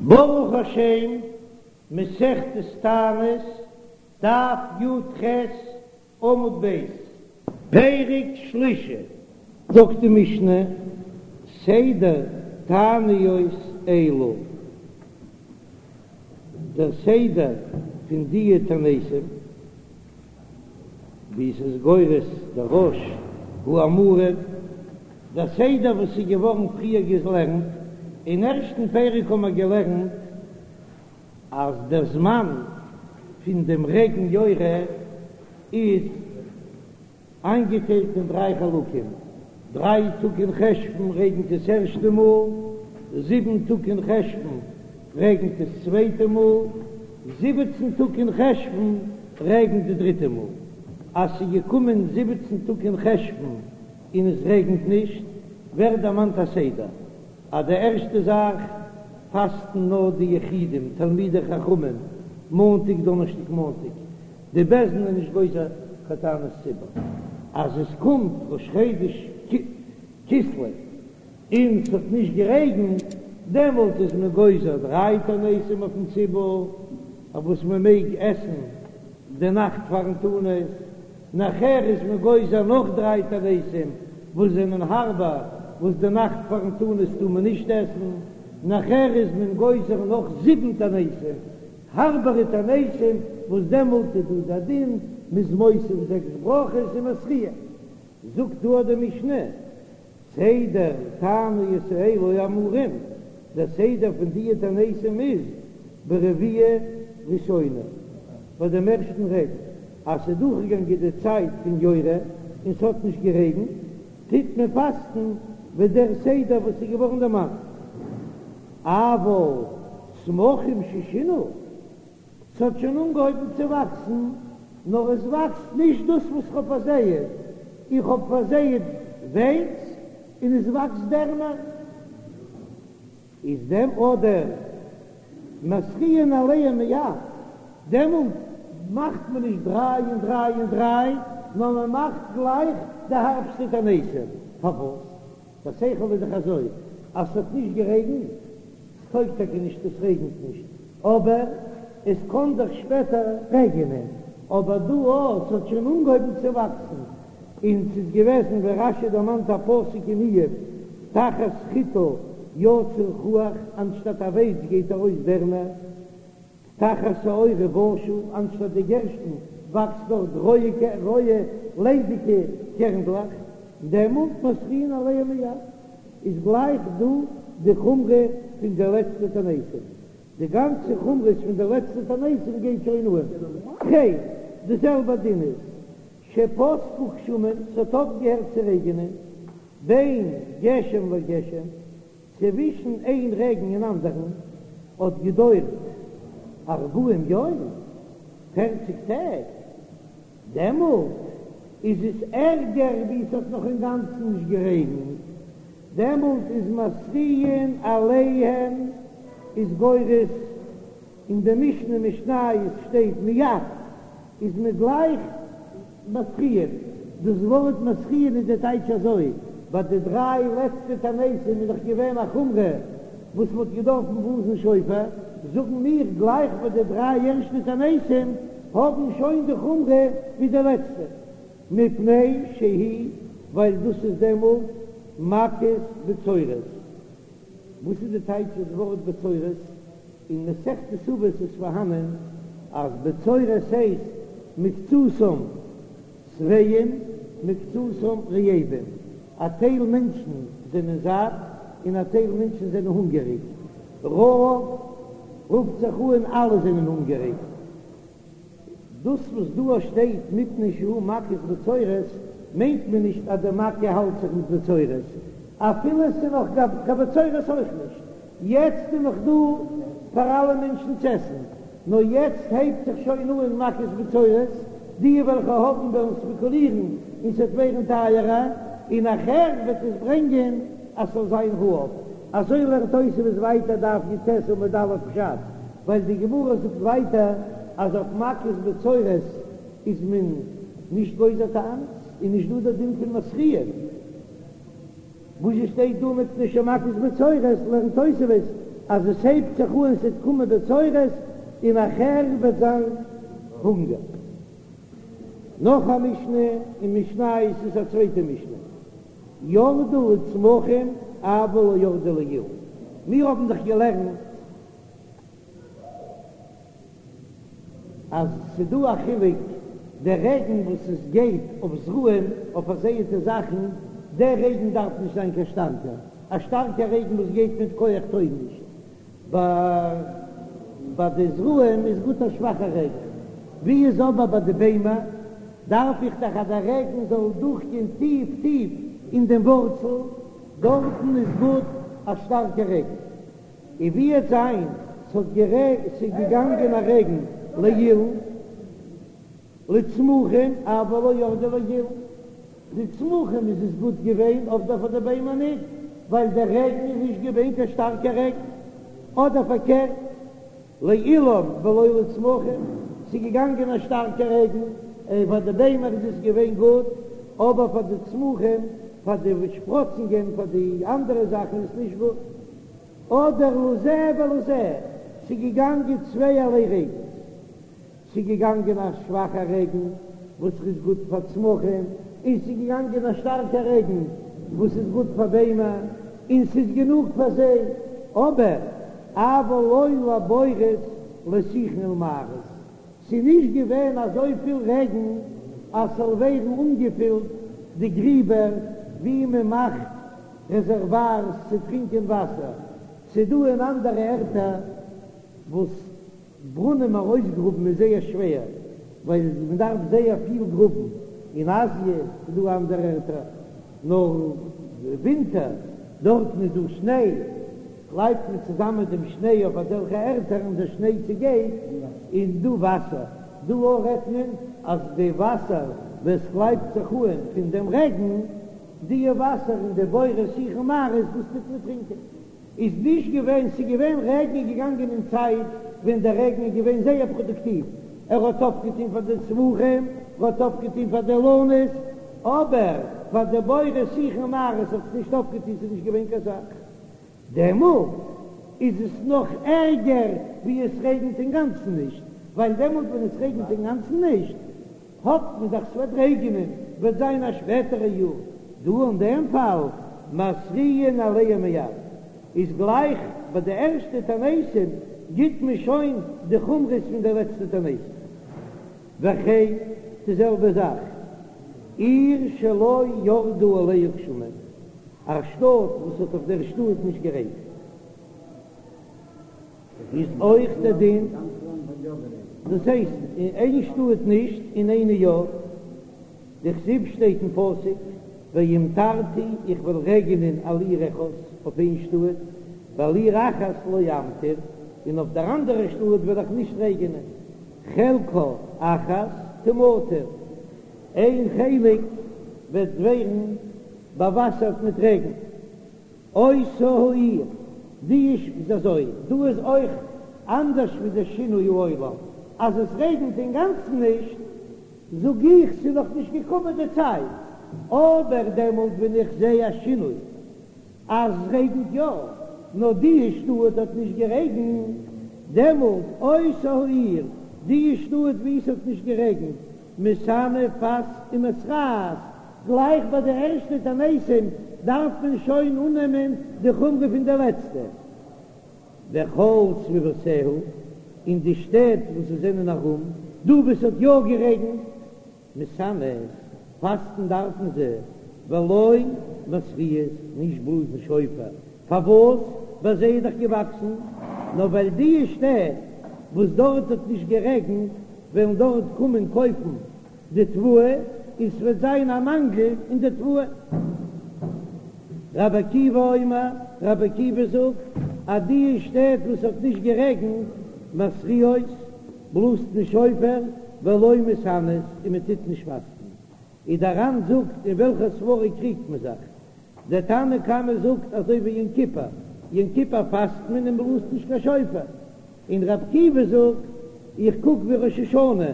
ברוך השם, מסכת תענית, דף י"ח, עמוד ב', פרק שלישי. זאגט די משנה, סדר תעניות אלו, דער סדר פון דיע תעניתים, ווי עס איז גורס דער רא"ש האמורים, דער סדר וואס איז געווארן פריער געלערנט, אין ערשטן פרק האבן מיר געלערנט אז דער זמן פון דעם רעגן יורה איז איינגעטיילט אין דריי חלקים, דריי טאג אין חשוון רעגנט עס ערשטע מאל, זיבן טאג אין חשוון רעגנט עס צווייטע מאל, זיבעצן טאג אין חשוון רעגנט די דריטע מאל. אז ס'איז געקומען זיבעצן טאג אין חשוון און עס רעגנט נישט, ווערט דערמאנט א סדר, אז די ערשטע זאך פאסטן נאר די יחידים תלמידי חכמים מאנטאג דאנערשטאג מאנטאג, די בית דין איז נישט גוזר קיין תענית ציבור, אז עס קומט ראש חודש כסלו און ס'האט נישט גערעגנט, דעמאלט איז מען גוזר דריי תעניתים אויפן ציבור, אויף וואס מען מעג עסן די נאכט פארן תענית, נאכער איז מען גוזר נאך דריי תעניתים וואס זענען הארבער, וואס די נאכט פארן תענית טאר מען נישט עסן, נאכער איז מען גוזר נאך זיבן תעניתים, הארבערע תעניתים, וואס דעמאלט איז דא דער דין, מ'איז מוסיף זעקס ברכות און מתריע. זאגט דא די משנה, סדר תעניות האלו האמורים, דער סדר פון דיע תעניתים איז ברביעה ראשונה, ביי דעם ערשטן רעגן, אז ס'איז דורכגעגאנגען די צייט פון יורה און ס'האט נישט גערעגנט, טוט מען פאסטן ווי דער סדר וואס איז געווארן דערמאנט. אבל צמחים ששינו, ס'האט שוין אנגעהויבן צו וואקסן, נאר עס וואקסט נישט דאס וואס כ'האב פארזייעט, איך האב פארזייעט ווייץ און עס וואקסט דערנער, איז דעם אדער מתריעין עליהם מיד, דעמאלט מאכט מען נישט דריי און דריי און דריי, נאר מען מאכט גלייך די הארבסטע תעניתים. פארוואס? דער שכל איז דאך אזוי, אז ס'האט נישט גערעגנט, ס'טויג טאקע נישט עס רעגנט נישט, אבער עס קען דאך שפעטער רעגענען, אבער דא או ס'האט שוין אנגעהויבן צו וואקסן, און ס'איז געוועזן ווי רש"י דערמאנט א פסוק אין איוב, תחת חיטה יצא חוח, אנשטאט א ווייץ גייט ארויס דערנער. תחת שעורה בשה, אנשטאט די גערשטן וואקסט דארט רויע רויע ליידיגע קערנדלעך, דעמאלט מתריעין עליהם מיד, איז גלייך דא די חומרא פון די לעצטע תעניתים, די גאנצע חומרות פון די לעצטע תעניתים גייט שוין אן. וכן, די זעלבע דין איז שפסקו גשמים, ס'האט אויפגעהערט צו רעגענען, בין גשם לגשם, צווישן איין רעגן און אנדערן האט געדויערט ארבעים יום, פערציג טעג, דעמאלט איז עס ערגער ווי עס האט נאך אינגאנצן נישט גערעגנט, דעמאלט איז מתריעין עליהם איז גורס אין די משנה משניות שטייט מיד איז מען גלייך מתריעין, דאס ווארט מתריעין איז די טייטש אזוי, ביי די דריי לעצטע תעניתים איז דאך געווען א חומרא וואס מען האט געדארפן בלאזן שופר, זאגן מיר גלייך ביי די דריי ערשטע תעניתים האבן שוין די חומרא ווי די לעצטע, מפני שהיא ווייל דאס איז דעמאלט מכת בצורת. וואס איז די טייטש דאס ווארט בצורת? אין מסכת אבות איז פארהאנען אז בצורת הייסט מקצתם שבעים מקצתם רעבים, א טייל מענטשן זענען זאט און א טייל מענטשן זענען הונגעריג, רעב רופט זיך אן אלע זענען הונגעריג. דאס וואס דא שטייט מפני שהוא מכת בצורת מיינט מען נישט אז די מכה האלט זיך מיט בצורת, אפילו עס איז נאך קיין בצורת אויך נישט, יעצט איז נאך דא פאר אלע מענטשן צו עסן, נאר יעצט הייבט זיך שוין אן מכת בצורת, די וועלכע האבן וועלן ספעקולירן און ס'וועט ווערן טייערער, און נאכער וועט עס ברענגען אז ס'זאל זיין רעב. אזוי לערנט תוספות ווייטער דף י"ט עמוד א' פשט, ווייל די גמרא זאגט ווייטער אז אויף מכת בצורת איז מען נישט גוזר תענית, איז נישט דא דער דין פון מתריעין. וואס עס שטייט דא מפני שמכת בצורת לערנט תוספות. אז עס הייבט זיך אן ס'וועט קומען בצורת און נאכער וועט זיין הונגער. נאך א משנה אין משניות איז א צווייטע משנה, ירדו לצמחים אבל לא ירדו לאילן, מיר האבן דאך געלערנט אז ס'דא א חילוק דער רעגן וואס עס גייט אויף זרעים אויף פארזייעטע זאכן, דער רעגן דארף נישט זיין קיין שטארקער, א שטארקער רעגן וואס גייט מיט כח טויג נישט, ביי די זרעים איז גוט א שוואכער רעגן, ווי איז אבער ביי די ביימער דארף איך דאך אז דער רעגן זאל דורכגיין טיף טיף אין דעם ווארצל, דארטן איז גוט א שטארקער רעגן. און ווי וועט זיין ס'האט גערע ס'איז געגאנגען א רעגן לאילן לצמחים אבל לא ירדו לאילן, די צמחים איז עס גוט געווען אבער פאר די ביימער ניט, ווייל דער רעגן איז נישט געווען קיין שטארקע רעגן, אדער פארקערט לאילן ולא לצמחים, ס'איז געגאנגען א שטארקע רעגן, און פאר די ביימער איז עס געווען גוט, אבער פאר די צמחים, פאר די שפראצונגען, פאר די אנדערע זאכן איז עס נישט גוט. אדער לזה ולזה, ס'איז געגאנגען צווייערליי רעגנס, ס'איז געגאנגען א שוואכע רעגן וואס איז גוט פאר צמחים, און ס'איז געגאנגען א שטארקע רעגן וואס איז גוט פאר ביימער, און ס'איז גענוג פאר זיי, אבער אבל לא לבורות לשיחין ולמערות, ס'איז נישט געווען אזויפיל רעגן אז ס'זאל ווערן אנגעפילט די גריבער ווי מ'מאכט רעזערווארס צו טרינקען וואסער, ס'דא אין אנדערע ערטער וואס ברונעם ארויסגראבן איז זייער שווער ווייל מען דארף זייער פיל גראבן, אין אזיע איז דא אנדערע ערטער נאר ווינטער דארטן איז דא שניי קלייבט מען צוזאמען דעם שניי אויף אזעלכע ערטער און דער שניי צעגייט און דא וואסער, דא אויך רעדט מען אז די וואסער וואס קלייבט זיך אן פון דעם רעגן די וואסער אין די בורות שיחין ומערות דאס טוט מען טרינקען. איז נישט געווען, ס'איז געווען רעגן איז געגאנגען אין צייט ווען דער רעגן איז געווען זייער פראדוקטיוו, ער האט אויפגעטון פאר די צמחים, ער האט אויפגעטון פאר די אילנות, אבער פאר די בורות שיחין ומערות האט עס נישט אויפגעטון, ס'איז נישט געווען קיין סך. דעמאלט איז עס נאך ערגער ווי עס רעגנט אינגאנצן נישט, ווייל דעמאלט ווען עס רעגנט אינגאנצן נישט, האפט מען דאך ס'וועט רעגענען, וועט זיין א שפעטערע יאר, דא אין דעם פאל מתריעין עליהם מיד, איז גלייך ביי די ערשטע תעניתים גיט מען שוין די חומרות פון די לעצטע תעניתים. וכן די זעלבע זאך עיר שלא ירדו עליה גשמים, א שטאט וואס האט אויף דער שטאט נישט גערעגנט. איז אויך דער דין, דאס הייסט אין איין שטאט נישט אין איינע יא, דכתיב שטייט אין פסוק והמטרתי איך וועל רעגענען על עיר אחת אויף איין שטאט ועל עיר אחת לא אמטיר און אויף דער אנדערע שטאט וועל איך נישט רעגענען, חלקה אחת תמטר, איין חלק וועט ווערן באוואסערט מיט רעגן. אותה העיר, די איש איז אזוי, דא איז אויך אנדערש ווי די שינוי העולם, אז עס רעגנט אינגאנצן נישט, זאג איך ס'איז נאך נישט געקומען די צייט, אבער דעמאלט ווען איך זע א שינוי אז עס רעגנט יא, נאר די שטאט האט נישט גערעגנט, דעמאלט אותה העיר, די שטאט וואו עס האט נישט גערעגנט, מתענה פאסט ומתרעת, גלייך ביי די ערשטע תעניתים דארף מען שוין אננעמען די חומרא פון די לעצטע. וכל סביבותיה, און די שטעט וואס עס זענען ארום, דא וואו עס האט יא גערעגנט, מתענות, פאסטן דארפן זיי, ולא מתריעות, נישט בלאזן שופר, פארוואס? ביי זיי איז דאך געוואקסן, נאר ווייל די שטעט וואס דארט האט נישט גערעגנט וועלן דארט קומען קויפן די תבואה און ס'וועט זיין א מאנגל אין די תבואה. רבי עקיבא אומר, רבי עקיבא זאגט אז די שטעט וואס האט נישט גערעגנט מתריעות, בלאזט מען שופר, ולא מתענות, און מען טוט נישט פאסטן. איז דער ר"ן זאגט אין וועלכע סברא קריגט מען זיך? דער תנא קמא זאגט אזוי ווי יום כיפור, יום כיפור פאסט מען און בלאזט נישט קיין שופר, און רבי עקיבא זאגט איך קוק ווי ראש השנה,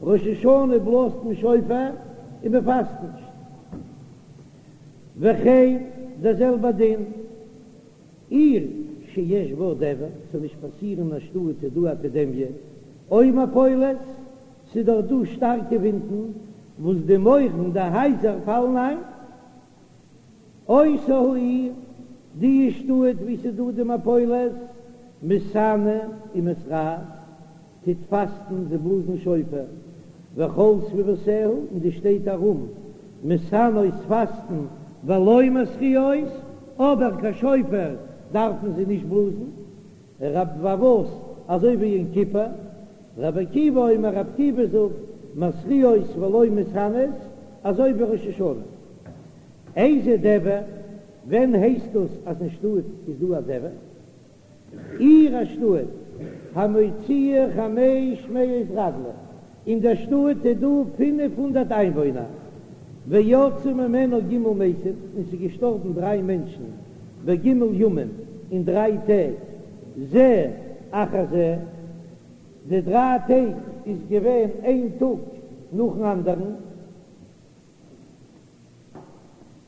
ראש השנה בלאזט מען שופר און מען פאסט נישט. וכן דער זעלבער דין עיר. שיש בה דבר, ס'זאל נישט פאסירן אין א שטאט איז דא א עפידעמיע, או מפולת, ס'איז דאך דא שטארקע ווינטן וואס די מויערן די הייזער פאלן איין. אותה העיר, די שטאט וואו ס'איז דא די מפולת, מתענה ומתרעת, טוט פאסטן, זיי בלאזן שופר, וכל סביבותיה, און די שטעט ארום, מתענות פאסטן, ולא מתריעות, אבער קיין שופר דארפן זיי נישט בלאזן, רב פארוואס אזוי ווי יום כיפור, רבי עקיבא אומר רבי עקיבא זאגט, מתריעות ולא מתענות, אזוי ווי ראש השנה. איזה דבר, ווען הייסט דאס אז אין שטאט איז דא א דבר? עיר א שטאט, המוציאה חמש מאות רגלי, אין דער שטאט איז דא 500 איינוואוינער, ויצאו ממנה ג' מתים, און ס'איז געשטארבן דריי מענטשן, בג' ימים, אין דריי טעג, זה אחר זה, די דריי טעג איז געווען איין טאג נאכן אנדערן.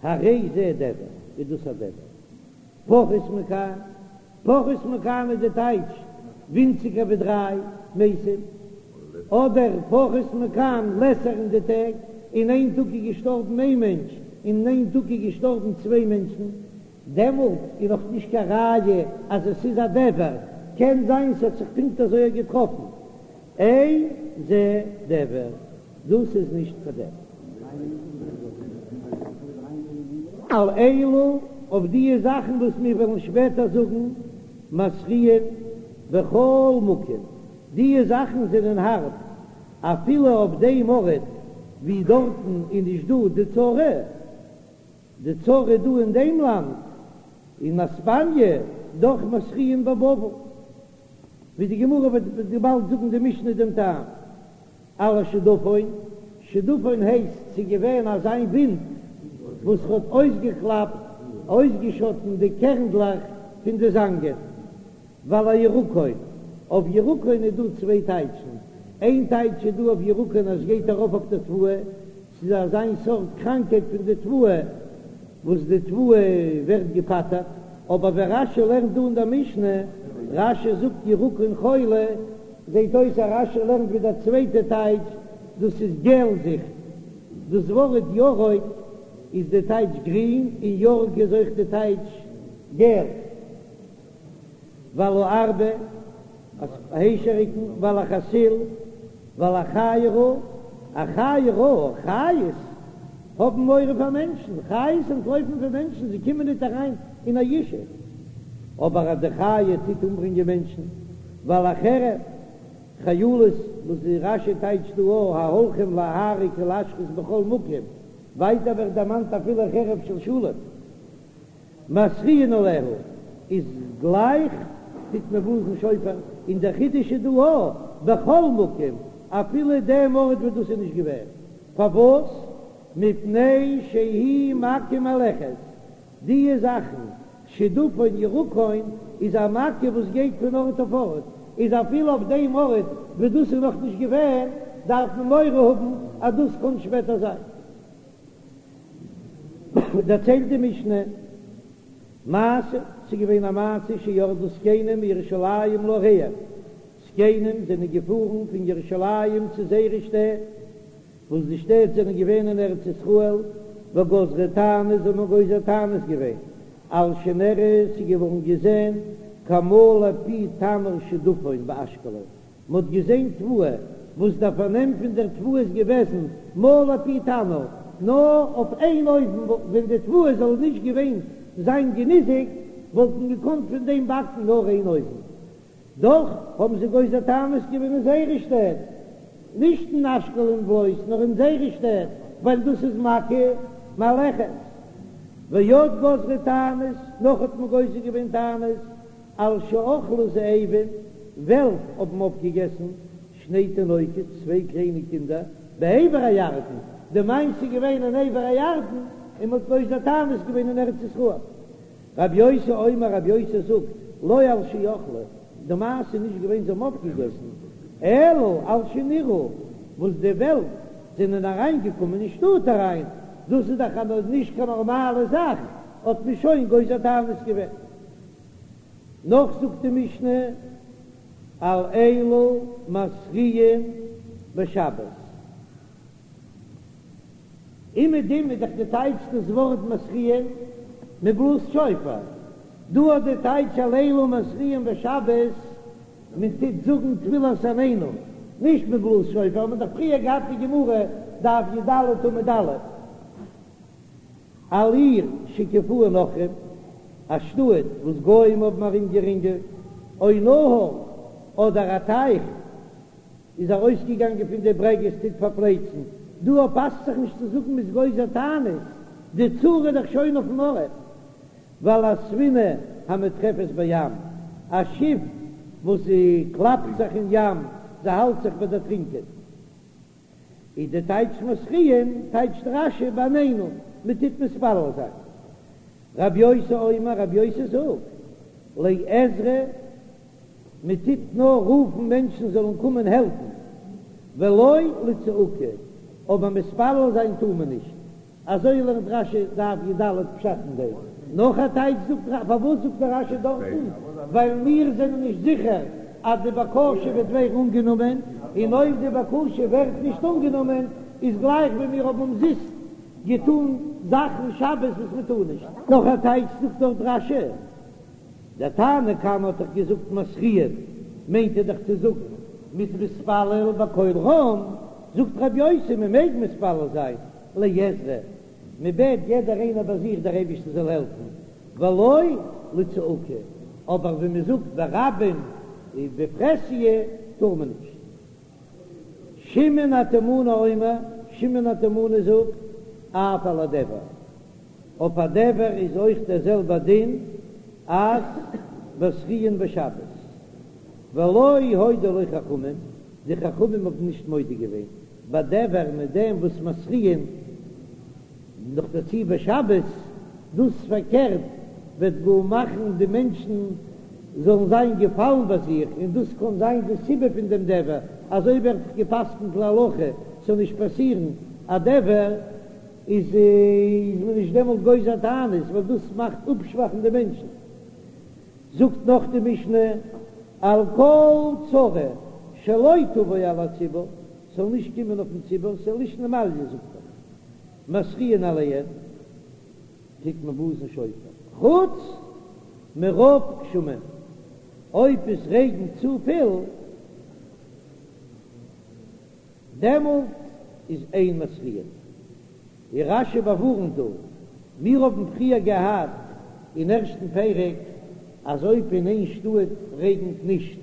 הרי זה דבר, איז דאס א דבר. פחות מכאן, פחות מכאן איז די טייטש ווינציגער ווי דריי מתים, אדער פחות מכאן לעסער אין די טעג, אין איין טאג איז געשטארבן איין מענטש, און אין איין טאג איז געשטארבן צוויי מענטשן, דעמאלט איז נאך נישט קיין ראיה אז עס איז א דבר, קען זיין ס'האט זיך פונקט אזוי געטראפן. אין זה דבר, דאס איז נישט קיין דבר. על אלו, אויף דיע זאכן וואס מיר וועלן שפעטער זאגן, מתריעין בכל מקום, דיע זאכן זענען הארב, אפילו אויף דעם ארט ווי דארטן איז נישט דא די צרה, די צרה איז דא אין דעם לאנד, אין אספאניע, דאך מתריעין בבבל. ווי די גמרא וועט באלד זאגן די משנה דעם טעם על השדפון, שדפון הייסט ס'איז געווען אזא ווינט וואס האט אויסגעקלאפט, אויסגעשאטן די קערנדלעך פון די זאנגען, ועל הירקון, אויף ירקון איז דא צוויי טייטשן, איין טייטש איז דא אויף ירקון אז ס'גייט ארויף אויף די תבואה, ס'איז אזא סארט קראנקייט פון די תבואה וואס די תבואה ווערט געפטר'ט, אבער ווען רש"י לערנט דא אין דער משנה, רש"י זאגט ירקון חולי, זעט אויס אז רש"י לערנט ווי דער צווייטע טייטש, דאס איז געלזיכט, דאס ווארט ירוק איז די טייטש גרין, און ירק איז אויך די טייטש געל. ועל הארבה, היישעריקן, ועל החסיל, ועל החיה רעה, א חיה רעה, חיות האבן מורא פאר מענטשן, חיות אנטלויפן פון מענטשן, זיי קומען ניט אריין אין א ישוב, אבער אז די חיה טוט אומברענגען מענטשן, ועל החרב, חיילות, וואס די רש"י טייטשט דא א ההולכים להרוג ולהשחית בכל מקום, ווייטער ווערט דערמאנט אפילו חרב של שלום. מתריעין עליה איז גלייך טוט מען בלאזן שופר, און דער חידוש איז דא א בכל מקום אפילו דעם ארט וואס דאס איז נישט געווען, פארוואס? מפני שהיא מכה מהלכת, דיע זאכן שדפון ירקון איז א מכה וואס גייט פון ארט אויף ארט, איז אפילו אויף דעם ארט וואס דאס איז נאך נישט געווען דארף מען מורא האבן אז דאס קען שפעטער זיין. דערציילט די משנה, מעשה, ס'איז געווען א מעשה שירדו זקנים מירושלים לעריהם, זקנים זענען געפארן פון ירושלים צו זייערע שטעט, וואס די שטעט זענען געווען אין ארץ ישראל, וגזרו תענית, זיי האבן גוזר תענית געווען, על שנראה, ס'איז געווארן געזען כמלא פי תנור שדפון באשקלון, מ'האט געזען תבואה, וואס דער פארנעם פון דער תבואה איז געוועזן מלא פי תנור, נאר אויף איין אויוון, ווען די תבואה זאל נישט געווען זיין געניזיקט, וואלט מען געקאנט פון דעם באקן נאר איין אויוון. דאך האבן זיי גוזר תענית געווען אין זייערע שטעט, נישט אין אשקלון בלויז, נאר אין זייערע שטעט, ווייל דאס איז מכה מהלכת. ועוד גזרו תענית, נאך האט מען גוזר געווען תענית, על שאכלו זאבים, וועלף האבן אויפגעגעסן שני תינוקות, צוויי קליינע קינדער, בעבר הירדן, די מעשה איז געווען אין עבר הירדן, און מ'האט גוזר תענית געווען אין ארץ ישראל. רבי יוסי אומר, רבי יוסי זאגט, לא על שאכלו, די מעשה איז נישט געווען זיי האבן אויפגעגעסן, אלא על שנראו, וואס די וועלף זענען אריינגעקומען אין שטאט אריין, דאס איז דאך נישט קיין נארמאלע זאך, האט מען שוין גוזר תענית געווען. נאך זאגט די משנה על אלו מתריעין בשבת. אומעדום איז דאך די טייטש דאס ווארט מתריעין, מען בלאזט שופר. דא האט די טייטש על אלו מתריעין בשבת, מען טוט זאגן תפילת עננו, נישט מען בלאזט שופר, האט מען דאך פריער געהאט די גמרא דף י"ד עמוד א', על עיר שהקיפוה נכרים, א שטאט וואס גוים האבן ארומגערינגלט, או נהר, אדער א טייך איז ארויסגעגאנגען פון די ברעגעס טוט פארפלייצן, דא פאסט זיך נישט צו זאגן מ'איז גוזר תענית, די צרה איז דאך שוין אויפן ארט. ועל הספינה המטרפת בים, א שיף וואס זי קלאפט זיך אין ים, זי האלט זיך ביי דערטרינקען. איז די טייטש מתריעין, טייטשט רש"י בעננו, מען טוט מתפלל זיין. רב יוסי אומר, רב יוסי זאגט, לעזרה, מען טוט נאר רופן מענטשן זאלן קומען העלפן, ולא לצעקה, אבער מתפלל זיין טאר מען נישט. אזוי לערנט רש"י דף י"ד פשט אין דעם. נאך א טייטש זאגט רש"י, פארוואס זאגט דער רש"י דארטן? ווייל מיר זענען נישט זיכער אז די בקשה וועט ווערן אנגענומען, און אויב די בקשה ווערט נישט אנגענומען איז גלייך ווי מיר האבן אומזיסט געטון זאכן שבת וואס מען טאר נישט. נאך א טייטש זאגט דארט רש"י, דער תנא קמא האט דאך געזאגט מתריעין, מיינט ער דאך צו זאגן מ'איז מתפלל בקול רם, זאגט רבי יוסי מען מעג מתפלל זיין לעזרה, מען בעט יעדער איינער ביי זיך דער אייבערשטער זאל העלפן, ולא לצעקה, אבער ווען מען זאגט ברבים בפרהסיא טאר מען נישט. שמעון התימני אומר, שמעון התימני זאגט, אף על הדבר, אויף א דבר איז אויך דער זעלבער דין אז מתריעין בשבת, ולא הודו לו חכמים, די חכמים האבן נישט מודה געווען, בדבר מיט דעם וואס מתריעין נאכדערצו בשבת, דאס פארקערט וועט גאר מאכן די מענטשן זאלן זיין געפאלן ביי זיך, און דאס קען זיין די סיבה פון דעם דבר, אזוי ווערט גע'פסק'נט להלכה, ס'זאל נישט פאסירן א דבר, איז איז מען נישט דעמאלט גוזר תענית, ווייל דאס מאכט אפשוואכן די מענטשן. זאגט נאך די משנה, על כל צרה שלא תבוא על הציבור, ס'זאל נישט קומען אויפן ציבור, ס'איז לישנא מעליא זאגט ער, מתריעין עליהן, טוט מען בלאזן שופר, חוץ מרוב גשמים, אויב עס רעגנט צופיל, דעמאלט איז אין מתריעין. ווי רש"י באווארנט דא, מיר האבן פריער געהאט אין ערשטן פרק אז אויב אין איין שטאט רעגנט נישט,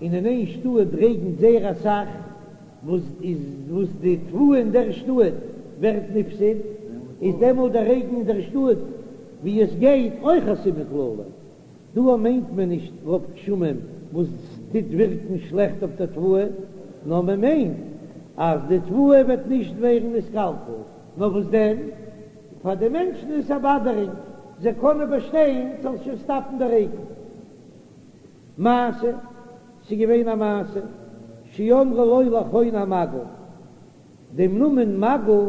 און אין איין שטאט רעגנט זייער אסאך, וואס איז וואס די תבואה אין דער שטאט ווערט נפסד, איז דעמאלט דער רעגן אין דער שטאט ווי עס גייט אויך א סימן קללה. דא מיינט מען נישט רוב גשמים וואס טוט ווירקן שלעכט אויף דער תבואה, נאר מען מיינט אז די תבואה וועט נישט ווערן נתקלקל, נאר וואס דען, פאר די מענטשן איז עס א באדערונג, זיי קענען באשטיין ס'זאל שוין סטאפן די רעגן. מעשה, ס'איז געווען א מעשה, שאמרו לו לחוני המעגל, דעם נאמען מגל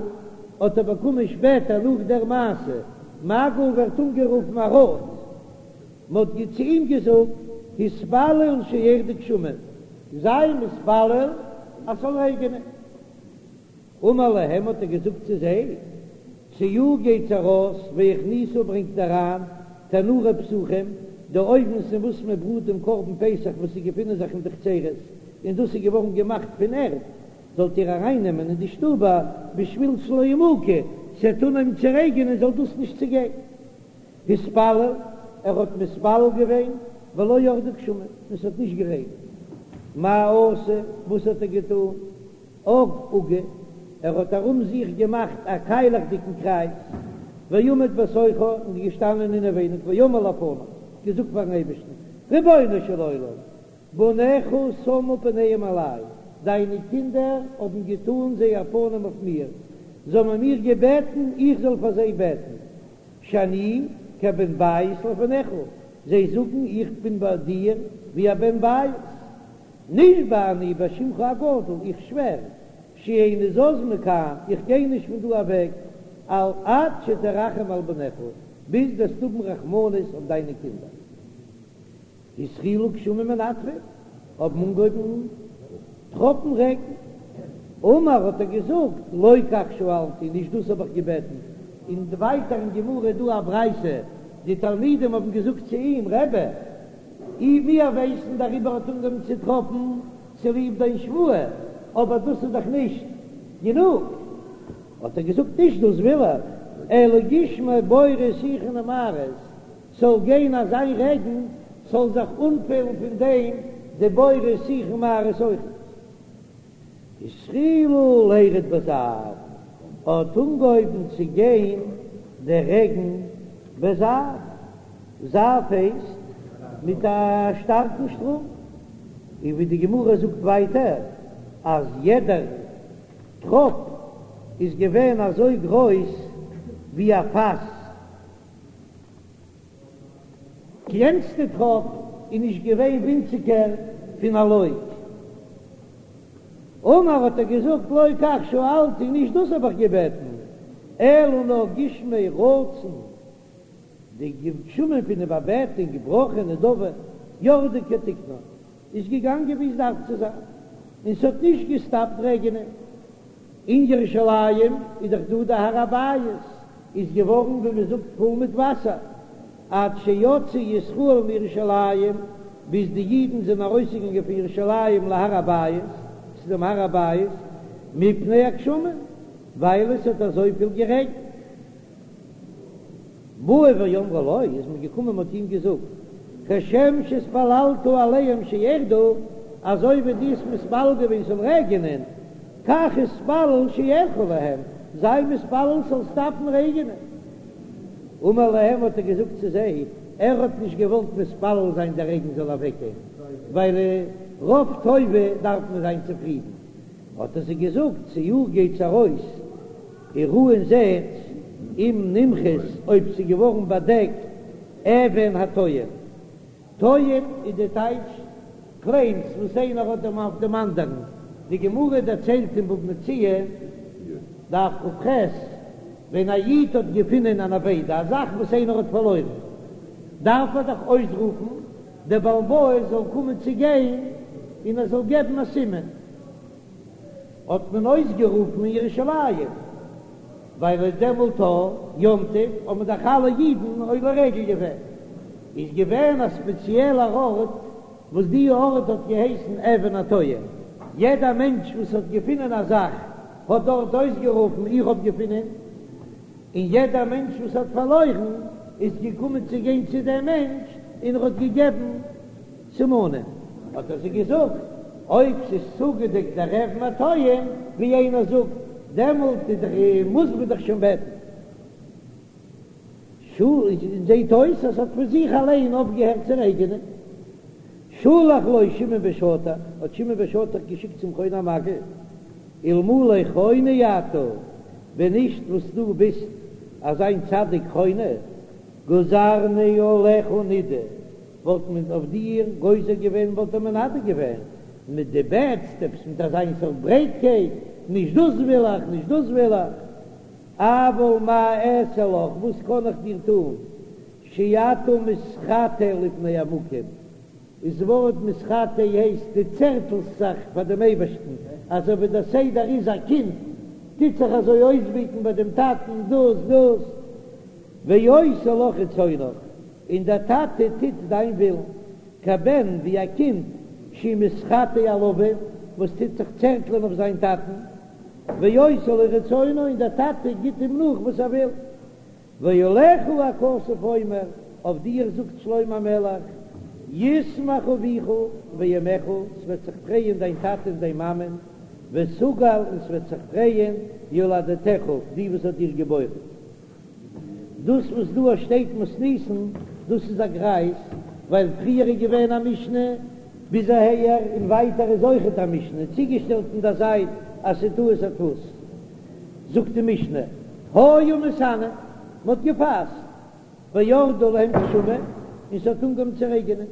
האט ער באקומען שפעטער נאך דער מעשה, מגל ווערט אנגערופן א ראד, מען האט צו אים געזאגט התפלל שירדו גשמים, זיי מתפלל אז ס'זאל רעגענען, אמר להם האט ער געזאגט צו זיי, צאו גייטס ארויס והכניסו ברענגט אריין תנורי פסחים, די אויוונס אין וואס מען בראט דעם קרבן פסח וואס זיי געפינען זיך אין די חצרות, און דאס איז געווארן געמאכט פון ערד, זאלט איר ארייננעמען אין די שטובער בשביל שלא ימוקו, ס'וועט אנהויבן צו רעגענען זאל דאס נישט צעגיין. התפלל, ער האט מתפלל געווען, ולא ירדו גשמים, און ס'האט נישט גערעגנט. מה עשה, וואס האט ער געטון? עג עוגה, ער האט ארום זיך געמאכט א קיילעכדיגן קרייז, ועמד בתוכה, און איז געשטאנען אינעווייניג, ואמר לפניו, געזאגט פארן אייבערשטן, רבונו של עולם, בניך שמו פניהם עלי, דיינע קינדער האבן געטאן זייער פנים אויף מיר, זיי האבן מיר געבעטן איך זאל פאר זיי בעטן, שאני כבן בית לפניך, זיי זאגן איך בין ביי דיר ווי א בן בית, נשבע אני בשמך הגדול, איך שווער, שאיני זז מכאן, איך גיי נישט פון דא אוועק, על עד שתרחם על בניך, ביז דו וועסט האבן רחמנות אויף דיינע קינדער. התחילו גשמים מנטפין, האבן אנגעהויבן טראפן רעגן. אמר האט ער געזאגט, לא כך שאלתי, נישט דאס האב איך געבעטן. און ווייטער אין גמרא איז דא א ברייתא, די תלמידים האבן געזאגט צו אים, רבי, אי מיר ווייסן דעריבער האט אנגעהויבן צו טראפן צוליב דיין שבועה, אבער דאס איז דאך נישט גענוג. האט ער געזאגט, נישט דאס וויל איך, אלא גשמי בורות שיחין ומערות, ס'זאל גיין אזא רעגן, ס'זאל זיך אנפילן פון דעם די בורות שיחין ומערות אויכעט. התחילו לירד בזעף, האט אנגעהויבן צו גיין דער רעגן בזעף, זעף הייסט מיט א שטארקן שטראם, און ווי די גמרא זאגט ווייטער אז יעדער טראפ איז געווען אזוי גרויס ווי א פאס. קלענסטע טראפ איז נישט געווען ווינציגער פון א לוג. אמר האט ער געזאגט לא כך שאלתי, נישט דאס האב איך געבעטן, אלא נאר גשמי רצון, די גשמים פון איבערבעטונג, ברכה נדבה, ירדו כתיקנן, איז געגאנגען ווי עס דארף צו זיין, און ס'האט נישט געסטאפט רעגענען. אין ירושלים איז דאך דא די הר הבית, איז געווארן ווי מען זאגט פול מיט וואסער, עד שיצאו ישראל מירושלים, ביז די אידן זענען ארויסגעגאנגען פון ירושלים להר הבית, צו דעם הר הבית, מפני הגשמים, ווייל עס האט אזויפיל גערעגנט. באו ואמרו לו, איז מען געקומען מ'האט אים געזאגט, כשם שהתפללת עליהם שירדו, אזוי ווי דו האסט מתפלל געווען ס'זאל רעגענען, כך התפלל שירחו להם, זיי מתפלל ס'זאל סטאפן רעגענען. אמר להם האט ער געזאגט צו זיי, ער האט נישט געוואלט מתפלל זיין דער רעגן זאל אוועקגיין, ווייל רוב טובה דארף מען זיין צופרידן, האט ער זיי געזאגט, צאו גייטס ארויס, וראו און זעט אם נמחית אויב ס'איז געווארן באדעקט אבן הטוען. טוען איז די טייטש קלעימס וואס איינער האט דעם אויף דעם אנדערן. די גמרא דערציילט אין בבא מציעא, דף כ"ח, ווען א איד האט געפונען אן אבידה, א זאך וואס איינער האט פארלוירן, דארף ער דאך אויסרופן דער בעל הבית זאל קומען צו גיין און ער זאל געבן א סימן. האט מען אויסגערופן אין ירושלים, ווייל איז דעמאלט א יום טוב האבן דאך אלע אידן עולה רגל געווען, איז געווען א ספעציעלער ארט וואס די ארט האט געהייסן אבן הטוען, יעדע מענטש וואס האט געפונען א זאך האט דארט אויסגערופן איך האב געפונען, און יעדע מענטש וואס האט פארלוירן איז געקומען צו גיין צו דעם מענטש און ער האט געגעבן סימנים. האט ער זיי געזאגט, אויב ס'איז צוגעדעקט דער אבן הטוען, ווי איינער זאגט, דעמאלט איז דאך מוז מען דאך שוין בעטן. זעט אויס אז ס'האט פון זיך אליין אויפגעהערט צו רעגענען. שלח לו שמעון בן שטח, האט שמעון בן שטח געשיקט צום חוני המעגל, אלמלא חוני אתה, ווען נישט וואס דו ביסט אזיין צדיק חוני, גזרנו עליך נידוי, וואלט מען אויף דיר גוזר געווען וואלט ער מנדה געווען מיט דו בעטסט עפעס מיט אזיין סארט ברייטקייט, נישט דאס וויל איך, נישט דאס וויל איך, אבל מה אעשה לך, וואס קען איך דיר טון, שאתה מתחטא לפני המקום, איז ווארט מתחטא הייסט דו צערטלסט זיך פאר דעם אייבערשטן, אזוי ווי דער סדר איז א קינד טוט זיך אזוי אויסבעטן ביי דעם טאטן דאס דאס, ועושה לך רצונך, און דער טאטע טוט דיין ווילן, כבן ווי א קינד שהוא מתחטא על אביו, וואס טוט זיך צערטלען אויף זיין טאטן, ועושה לו רצונו, און דער טאטע גיט אים נאך וואס ער וויל. ועליך הכתוב אומר, אויף דיר זאגט שלמה המלך, ישמח אביך ואמך, ס'וועט זיך פרייען דיין טאטע און דיין מאמע, ותגל, און ס'וועט זיך פרייען יולדתך, די וואס האט דיר געבוירן. דאס וואס דא שטייט מתניתין, דאס איז א גרייז, ווייל פריער איז געווען א משנה ביז אהער, און ווייטער איז אויכעט א משנה, צוגעשטעלט אין דער זייט אז ס'איז טעות הדפוס. זאגט די משנה, היו מתענין, מ'האט געפאסט, וירדו להם גשמים, און ס'האט אנגעהויבן צו רעגענען.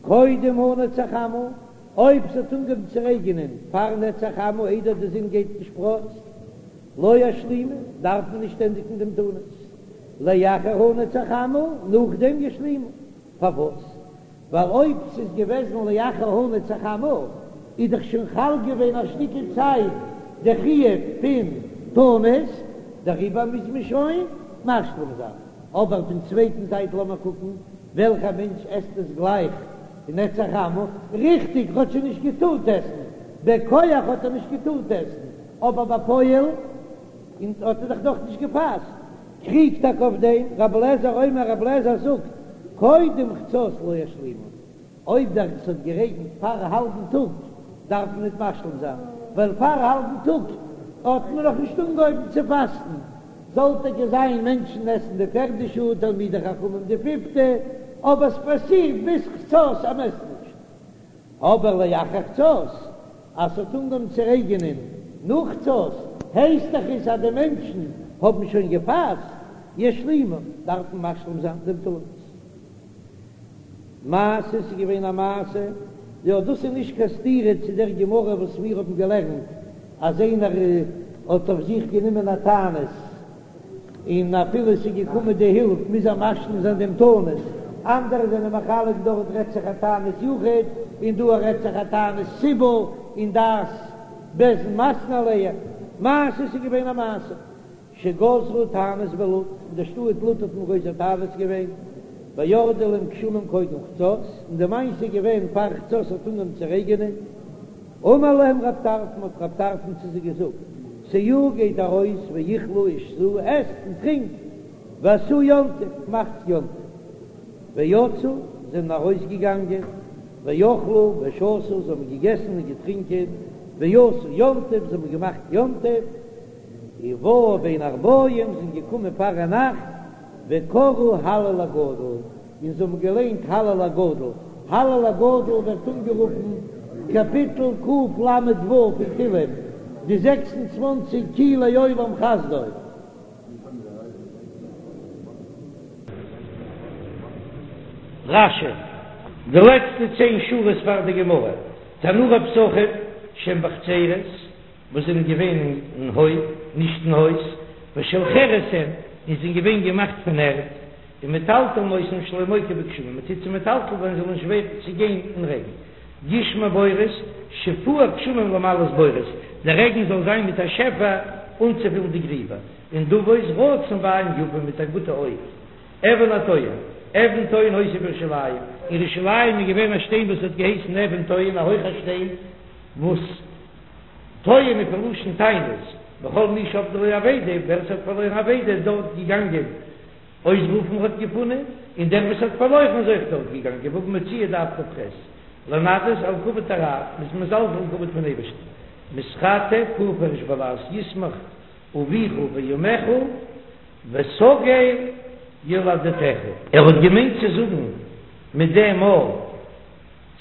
קודם הנץ החמה, אויב ס'האט אנגעהויבן צו רעגענען פאר נץ החמה איידער די זון גייט אין שפראץ, לא ישלימו, דארף מען נישט ענדיגן דעם תענית, לאחר הנץ החמה, נאכדעם ישלימו. פארוואס? ווייל אויב ס'איז געוועזן לאחר הנץ החמה איז דאך שוין חל געווען א שטיקל צייט די חיוב פון תענית, דעריבער מוז מען שוין משלים זיין. אבער פון צווייטן זייט לאמיר קוקן וועלכע מענטש עסט עס גלייך אין נץ החמה, ריכטיג ער האט שוין נישט געטארט עסן, בכח האט ער נישט געטארט עסן, אבער בפועל האט ער דאך נאך נישט געפאסט. קריגט טאקע אויף דעם רבי אליעזר אומר רבי אליעזר זאגט קודם חצות לא ישלימו, אויב דער ס'האט גערעגנט פאר האלבן טאג דארף מען ניט משלים זיין, ווייל פאר האלבן טאג האט מען נאך נישט אנגעהויבן צו פאסטן, זאל טאקע זיין מענטשן עסן די פערדע שעה, תלמידי חכמים די פיפטע, אבער ס'פאסירט ביז חצות אז מ'עסט נישט. אבער לאחר חצות, אז ס'האט אנגעהויבן צו רעגענען נאך חצות, הייסט דאך עס אז די מענטשן האבן שוין געפאסט, ישלימו, דארף מען משלים זיין דעם תענית. מעשה, ס'איז געווען א מעשה, יא דאס איז נישט קיין סתירה צו דער גמרא וואס מיר האבן געלערנט אז איינער האט אויף זיך גענומען א תענית, און אפילו עס איז געקומען די הילף מוז ער משלים זיין דעם תענית, אנדערע זענען מחלק דארט רעדט זיך א תענית יחיד און דא רעדט זיך א תענית ציבור און דעת בית דין מתנה עליה, מעשה ס'איז געווען א מעשה שגזרו תענית בלוד, אין די שטאט לוד האט מען גוזר תענית געווען, וירדו להם גשמים קודם חצות, און די מעשה איז געווען פאר חצות האט אנגעהויבן צו רעגענען, אמר להם רב טרפון האט רב טרפון צו זיי געזאגט, צאו גייט ארויס ואכלו ושתו עסט און טרינקט, ועשו יום טוב מאכטס יום טוב, ויצאו זענען ארויס געגאנגען, ואכלו ושתו זיי האבן געגעסן און געטרינקען, ועשו יום טוב זיי האבן געמאכט יום טוב, ובאו בין הערבים זענען געקומען פארנאכט, וקראו הלל הגדול, און זיי האבן געליינט הלל הגדול, הלל הגדול ווערט אנגערופן קאפיטל קל"ו פון תהלים, די 26 כי לעולם חסדו. רש"י, די לעצטע צען שורות פאר די גמרא, תנורי פסחים שהן בחצרות, וואס זענען געווען אין הויף, נישט אין הויז, ושל חרס הן, און זענען געווען געמאכט פון ערד, ומטלטלין אותן שלא ימוקו בגשמים, מען טוט זיי מטלטל זיין זאל נישט ווערן צעגיין אין רעגן. גשמי בורות, שפוע גשמים למלאות בורות, דער רעגן זאל זיין מיט א שפע אנצופילן די גריבער, ונדבות רצון בעין יפה מיט א גוטע אויג. אבן הטועים, אבן טוהן היתה בירושלים, אין ירושלים איז געווען א שטיין וואס האט געהייסן אבן טוהן, א הויכער שטיין וואס. טוען איז פון לשון טענות, וכל מי שאבדה לו אבידה, ווער עס האט פארלוירן אבידה איז דארט געגאנגען אויסרופן האט געפונען, און דער וואס האט פארלוירן איז אויך דארט געגאנגען, בבא מציעא דף כ"ח, לנדות על כבוד הרב, מ'איז מזלזל אין כבוד פון אייבערשטן, מתחטא פורפרש בלע"ז ישמח אביך ואמך ותגל יולדתך. ער האט געמיינט צו זאגן מיט דעם א.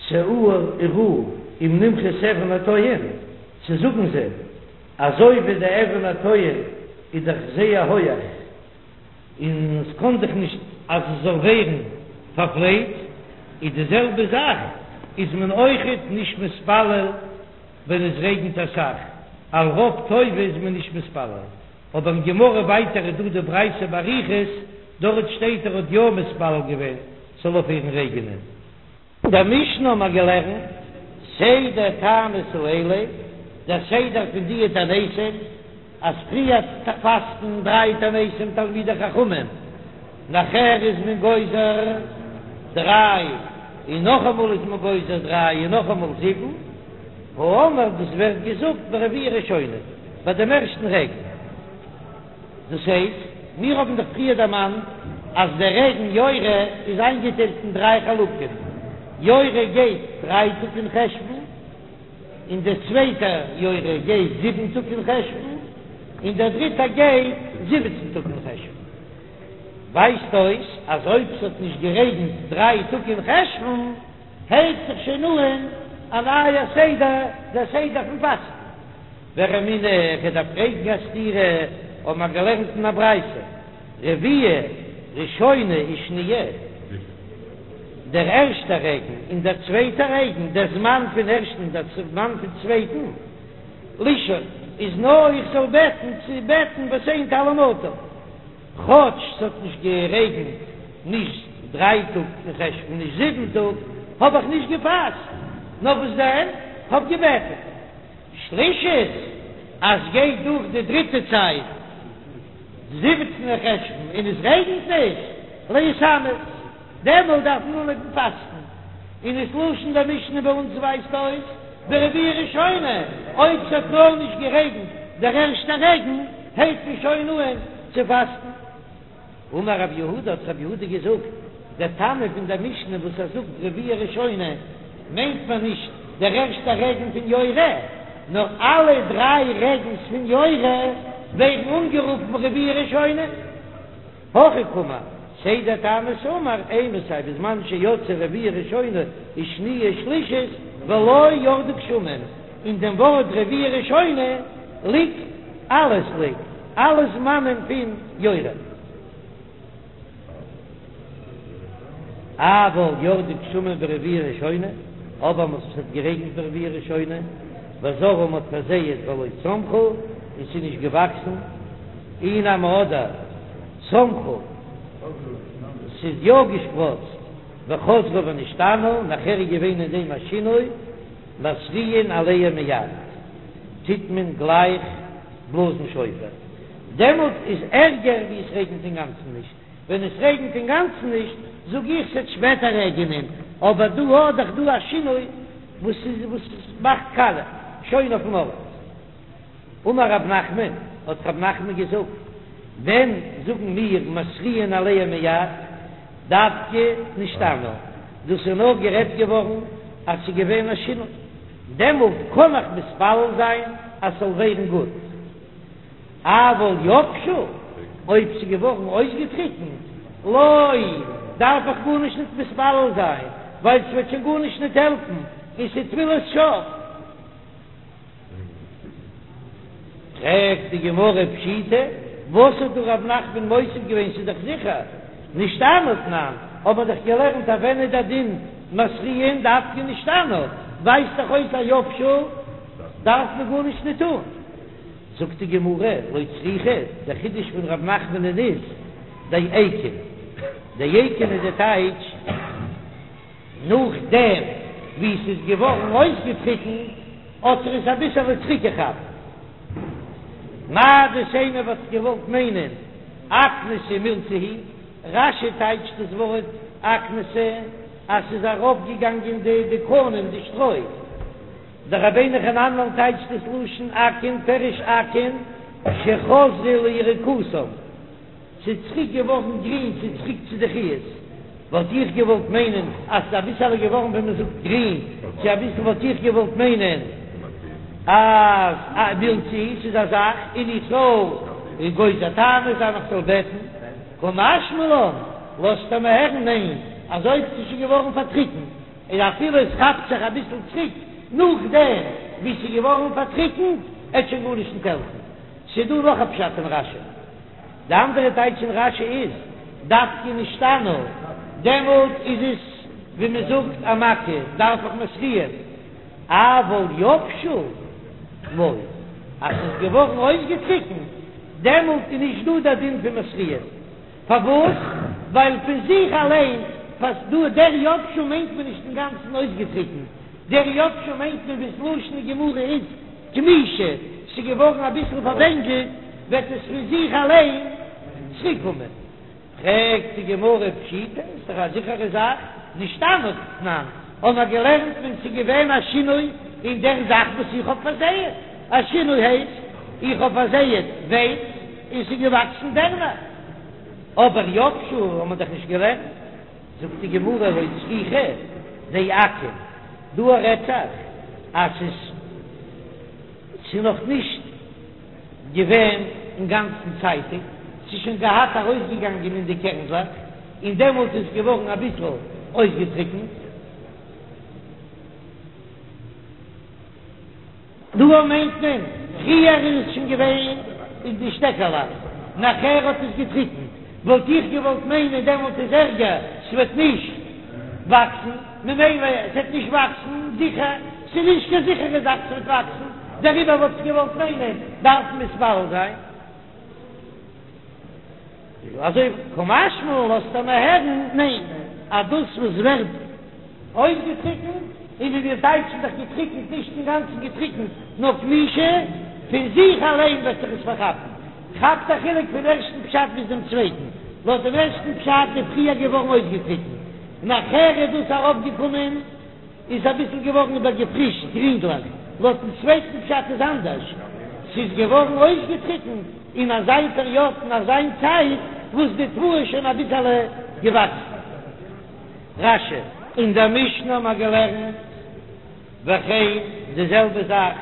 צאו וראו אם נמחית אבן הטועים, צו זאגן זיי, אזוי ווי די אבן הטועים איז דאך זייער הויעך און עס קען דאך נישט אז עס זאל ווערן פארפלייצט, איז די זעלבע זאך איז מען אויכעט נישט מתפלל ווען עס רעגנט אסאך, על רוב טובה איז מען נישט מתפלל, אבער אין גמרא ווייטער איז דא די ברייתא באריכות, דארט שטייט ער האט יא מתפלל געווען ס'זאל אויפהערן רעגענען. אין דער משנה האבן מיר געלערנט סדר תעניות האלה, דער סדר פון די תעניתים, אז פריער פאסטן דריי תעניתים תלמידי חכמים, נאכער איז מען גוזר דריי, און נאכאמאל איז מען גוזר דריי, און נאכאמאל זיבן, האמור דאס ווערט געזאגט ברביעה ראשונה, ביי דעם ערשטן רעגן. דאס הייסט, מיר האבן דאך פריער דערמאנט אז דער רעגן יורה איז איינגעטיילט אין דריי חלקים, יורה גייט דריי טאג אין חשון, און דער צווייטער יורה גייט זיבן טאג אין חשון, און דער דריטער גייט זיבעצן טאג אין חשון. ווייזט אויס אז אויב ס'האט נישט גערעגנט דריי טאג אין חשון, הייבט זיך שוין אן א נייער סדר, דער סדר פון פאסטן. ורמינהו, כ'דארף פרעגן א סתירה, האבן מיר געלערנט אין א ברייתא, רביעה ראשונה ושניה, דער ערשטער רעגן און דער צווייטער רעגן, דער זמן פון ערשטן און דער זמן פון צווייטן, לשאול, איז נאר איך זאל בעטן צו בעטן ותן טל ומטר. כאטש ס'האט נישט גערעגנט נישט דריי טאג אין חשון נישט זיבן טאג, האב איך נישט געפאסט, נאר וואס דען, כ'האב געבעטן. שלישית, אז גייט דורך די דריטע צייט, זיבעצן אין חשוון, און עס רעגנט נישט, להתענות, דעמאלט דארף מען אנהויבן פאסטן, און דאס לשון דער משנה ביי אונז ווייזט אויס ברביעה ראשונה, אויב ס'האט נאר נישט גערעגנט דער ערשטער רעגן, הייבט מען שוין אן צו פאסטן. אמר רב יהודה, האט רב יהודה געזאגט, דער תנא פון דער משנה וואס ער זאגט רביעה ראשונה, מיינט מען נישט דער ערשטער רעגן פון יורה, נאר אלע דריי רעגנס פון יורה ווערן אנגערופן רביעה ראשונה. הכי קאמר, סדר תענית אמר, אימתי בזמן שיצאה רביעה ראשונה ושניה ושלישית ולא ירדו גשמים, אין דעם ווארט רביעה ראשונה ליגט אלעס ליגט אלע זמנים פון יורה. אבל ירדו גשמים ברביעה ראשונה, אבער וואס עס האט גערעגנט ברביעה ראשונה, וזרעו מ'האט פארזייעט ולא צמחו, און ס'איז נישט געוואקסן, אי נמי אדער צמחו, ס'איז יא געשפראצט, וחזרו ונשתנו, נאכער איז געווען אין דעם א שינוי, מתריעין עליהם מיד, טוט מען גלייך בלאזן שופר, דעמאלט איז ערגער ווי עס רעגנט אינגאנצן נישט, ווען עס רעגנט אינגאנצן נישט זאג איך ס'עט שפעטער רעגענען, אבער דא האט דאך דא א שינוי וואס איז וואס מאכט קאלע שוין אויפן ארט. אמר רב נחמן, האט רב נחמן געזאגט, ווען זאגן מיר מתריעין עליהם מיד, דווקא נשתנו, דאס איז נאר גערעדט געווארן אז ס'איז געווען א שינוי, דעמאלט קען איך מתפלל זיין אז ס'זאל ווערן גוט. אבל יבשו, אויב ס'איז געווארן אויסגעטריקנט, לא, דארף איך גארנישט ניט מתפלל זיין, ווייל ס'וועט שוין גארנישט ניט העלפן, און ס'איז תפילת שוא. פרעגט די גמרא פשיטא, וואס האט דא רב נחמן מוסיף געווען, ס'איז דאך זיכער נשתנו תנן, האט מען דאך געלערנט אז ווען איז דער דין מתריעין דווקא נשתנו, ווייזט דאך אויס אז יבשו דארף מען גארנישט ניט טון. זאגט די גמרא, לא צריכא, דער חידוש פון רב נחמנ'ן איז דאיקון, דאיקון איז די טייטש, נאכדעם ווי ס'איז געווארן אויסגעטריקנט האט ער עס אביסעלע צוריקגעכאפט. מהו דתימא וואלט איך געוואלט מיינען אקנתא מילתא היא, רש"י טייטשט דאס ווארט אקנתא אז ס'איז ארויפגעגאנגען די די קנים די שטרוי, דער רבינו חננאל טייטשט דאס לשון אקון פירוש אקון שחזרו ליריקותם. ס'איז צוריק געווארן גרין, ס'איז צוריק צו די חיות, וואלט איך געוואלט מיינען אז ס'איז אביסעלע געווארן ווי מ'זאגט גרין, צו אביסל וואלט איך געוואלט מיינען אז מילתא היא, ס'איז א זאך און איך זאל גוזר תענית זיין איך זאל בעטן, קא משמע לן, לאזט ער מיר הערן ניין, אז אויב ס'איז שוין געווארן פארטריקנט, און אפילו עס כאפט זיך אביסל צוריק נאכדעם ווי ס'איז געווארן פארטריקנט, עט שוין גארנישט נישט העלפן. ס'איז דא נאך א פשט אין רש"י. די אנדערע טייטש אין רש"י איז, דווקא נשתנו, דעמאלט איז עס ווי מען זאגט א מכה, דארף איך מתריעין, אבל יבשו לא, אז ס'איז געווארן אויסגעטריקנט, דעמאלט איז נישט דא דער דין פון מתריעין. פארוואס? ווייל פון זיך אליין פאסט דא, דער יבשו מיינט מען נישט אינגאנצן אויסגעטריקנט, דער יבשו מיינט מען ווי ס'לשון אין גמרא איז כמישא, ס'איז געווארן אביסל פארווענגלט, וועט עס פון זיך אליין צוריקקומען. פרעגט די גמרא פשיטא, איז דאך א זיכערע זאך, נשתנו תנן, האבן מיר געלערנט ווען ס'איז געווען א שינוי אין דער זאך וואס איך האב פארזייעט, א שינוי הייסט, איך האב פארזייעט ווייץ און ס'איז געוואקסן דערנער, אבער יבשו האבן מיר דאך נישט געלערנט. זאגט די גמרא לא צריכא דאקון, דא רעדט זיך אז ס'איז ס'איז נאך נישט געווען אינגאנצן צייטיג, ס'איז שוין געהאט ארויסגעגאנגען אין די קערנדלעך, און דעמאלט איז געווארן אביסל אויסגעטריקנט. דא מיינט מען, פריער איז עס שוין געווען אין די שטעקעלעך, נאכער האט עס געטריקנט, וואלט איך געוואלט מיינען דעמאלט איז ערגער, ס'וועט נישט וואקסן, ממילא ס'וועט נישט וואקסן זיכער, ס'איז נישט קיין זיכערע זאך ס'וועט וואקסן, דעריבער וואלט איך געוואלט מיינען דארף מען מתפלל זיין. אזוי קא משמע לן לאזט ער מיר הערן, ניין, אז דאס וואס ווערט. אויסגעטריקנט, און ווי מיר טייטשן דאך געטריקנט, נישט אינגאנצן געטריקנט, נאר כמישה, פון זיך אליין וועט זיך עס פארכאפן. כאפט א חילוק פון ערשטן פשט ביז דעם צווייטן, לויט דעם ערשטן פשט איז פריער געווארן אויסגעטריקנט, נאכער איז דאס ארויפגעקומען, איז אביסל געווארן איבערגעפרישט, גרינגליך, לויטן צווייטן פשט איז אנדערש, ס'איז געווארן אויסגעטריקנט אין אזיין פעריאד אין אזיין צייט וואס די תבואה איז שוין אביסעלע געוואקסן. רש"י. אין דער משנה האבן מיר געלערנט וכן די זעלבע זאך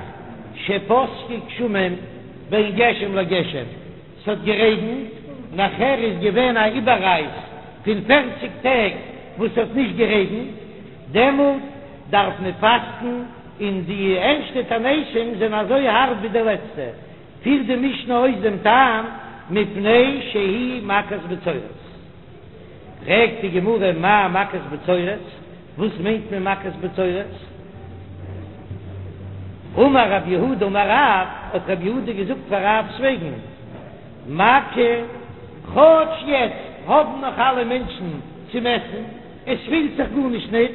שפסקו גשמים בין גשם לגשם, ס'האט גערעגנט, נאכער איז געווען א איבעררייס פון פערציג טעג וואס ס'האט נישט גערעגנט, דעמאלט דארף מען פאסטן, און די ערשטע תעניתים זענען אזוי הארב ווי די לעצטע, פירט די משנה אויס דעם טעם, מפני שהיא מכת בצורת. פרעגט די גמרא מאי מכת בצורת, וואס מיינט מען מכת בצורת? אמר רב יהודה אמר רב, האט רב יהודה געזאגט פאר רב'ס וועגן, מכה, כאטש יעצט האבן נאך אלע מענטשן צום עסן, עס פילט זיך גארנישט ניט,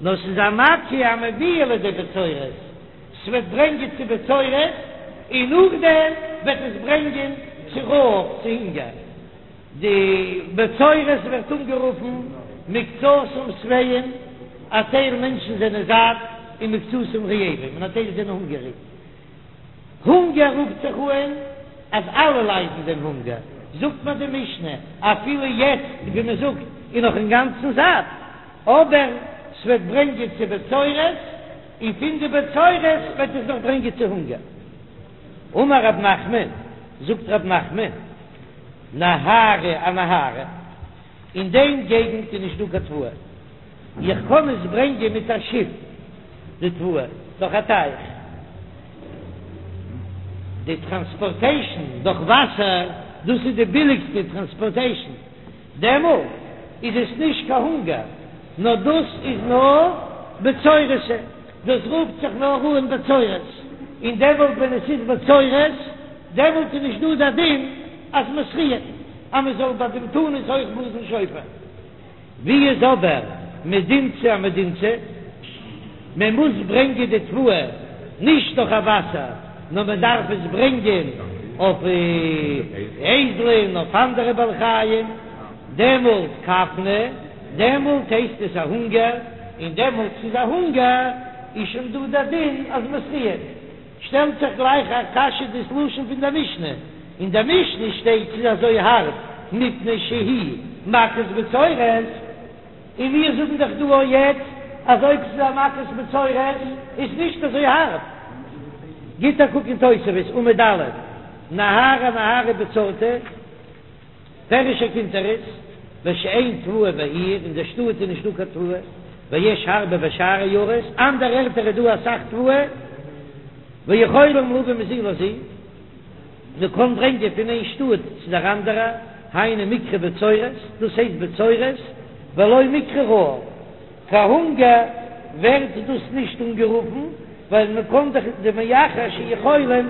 נאר ס'איז א מכה המביאה לידי בצורת, ס'וועט ברענגען צו בצורת, און נאכדעם וועט עס ברענגען צו רעב, צו הונגער. די בצורת ווערט אנגערופן מקצתם שבעים, א טייל מענטשן זענען זאט, און מקצתם רעבים, און א טייל זענען הונגעריג. הונגער רופט זיך אן אז אלע ליידן דעם הונגער, זאגט מיר די משנה, אפילו יעצט ווי מען זאגט איז נאך אינגאנצן זאט, אבער ס'וועט ברענגען צו בצורת, און פון די בצורת וועט עס נאך ברענגען צו הונגער. אמר רב נחמן, זאגט רב נחמן, נהרא אנהרא, אין דעם געגנט איז נישט דא קיין תבואה, איך קען עס ברענגען מיט א שיף די תבואה דורך א טייך, די טראנספארטעישן דורך וואסער, דאס איז די ביליגסטע טראנספארטעישן, דעמאלט איז עס נישט קיין הונגער, נאר דאס איז נאר בצורת, דאס רופט זיך נאר אן בצורת, און דעמאלט ווען עס איז בצורת, דעמאלט איז נישט דא דער דין אז מתריעין, אז מען זאל ביי דעם תענית אויך בלאזן שופר. ווי איז אבער מדינתא אמדינתא? מען מוז ברענגען די תבואה נישט דורך א וואסער, נאר מען דארף עס ברענגען אויף אייזלען, אויף אנדערע בעלי חיים, דעמאלט כפנא, דעמאלט הייסט עס א הונגער, און דעמאלט ס'איז א הונגער איז שוין דא דער דין אז מתריעין. שטעלט זיך גלייך א קשיא דאס לשון פון דער משנה, אין דער משנה שטייט ס'איז אזוי הארב מפני שהיא מכת בצורת, און מיר זאגן דאך דא אויך יעצט אז אויב ס'איז א מכת בצורת איז נישט אזוי הארב. גיט א קוק אין תוספות עמוד א', נהרא אנהרא בצורתא. פירש הקונטרס, בשאין תבואה בעיר, אין דער שטאט איז נישטא קיין תבואה, ויש הרבה בשאר עיירות, אנדערע ערטער איז דא אסאך תבואה, ויכולים להביא מזו לזו, מען קען ברענגען פון איין שטאט צו דער אנדערע, היינו מיקרי בצורת, דאס הייסט בצורת, ולא מיקרי רעב. קיין הונגער ווערט דאס נישט אנגערופן, ווייל מען קען דאך דמאחר שיכולים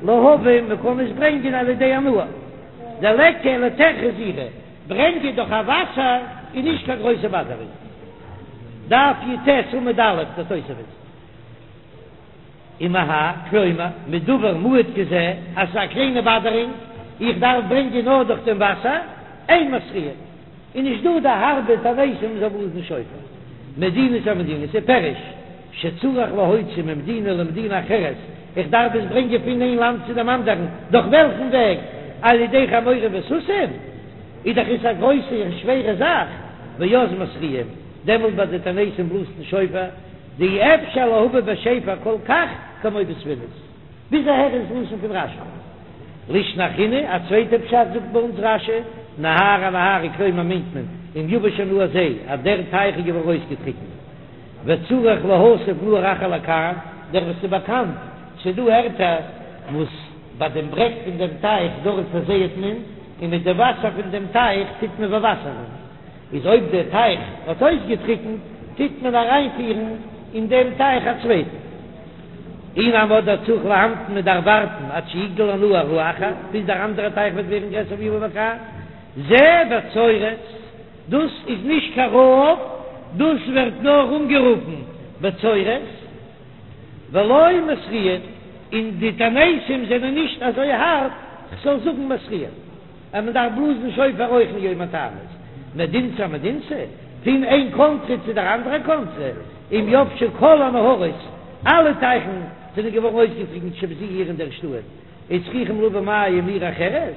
להביא, מען קען עס ברענגען על ידי הנהר. דליכא אלא טירחא זעירא, ברענגען דורך א וואסער איז נישט קיין גרויסע באדערונג. דף י"ט עמוד א', דער תוספות. ומהאי, כלומר, מדבר מועט כזה, אז ס'איז א קליינע באדערונג, איך דארף ברענגען נאר דורך דעם וואסער, אין מתריעין. איז נישט דא די הארבע תעניתים מ'זאל בלאזן שופר. מדינתא אמדינתא פירוש שצריך להוציא ממדינה למדינה אחרת, איך דארף עס ברענגען פון איין לאנד צו דעם אנדערן, דורך וועלכן וועג? על ידי חמורים וסוסים? איז דאך עס א גרויסע און שווערע זאך, ואז מתריעים, דעמאלט ביי די תעניתים בלאזט מען שופר, דאי אפשר להביא בשפר כל כך כמו בספינות. ביז אהער איז לשון פון רש"י. לישנא אחרינא, א צווייטע פשט זאגט ביי אונז רש"י, נהרא אנהרא כלומר מיינט מען, אם יבש הנהר זה, אז דער טייך איז געווארן אויסגעטריקנט, וצריך להסב נהר אחר לכאן, דער וואס איז באקאנט, ס'איז דא ערטער וואס ביי דעם ברעג פון דעם טייך דארט פארזייעט מען, און מיט די וואסער פון דעם טייך טוט מען באוואסערן. איז אויב דער טייך האט אויסגעטריקנט, טוט מען אריינפירן אין דעם טייך א צווייטן. אי נמי אדער צריך להמתין מען דארף ווארטן עד שיגדל הנהר האחר, ביז דער אנדערער טייך וועט ווערן גרעסער ויבא לכאן. זה בצורת, דאס איז נישט קיין רעב. דאס ווערט נאר אנגערופן בצורת, ולא מתריעין, און די תעניתים זענען נישט אזוי הארב כ'זאל זאגן מתריעין אז מען דארף בלאזן שופר אויך אין יום התענית, מדינתא אמדינתא, פון איין קאנטרי צו דער אנדערע קאנטרי, אם יבשו כל הנהרות, אלע טייכן זענען געווארן אויסגעטריקנט שבזו עיר אין דער שטאט, וצריכים להביא מים מעיר אחרת,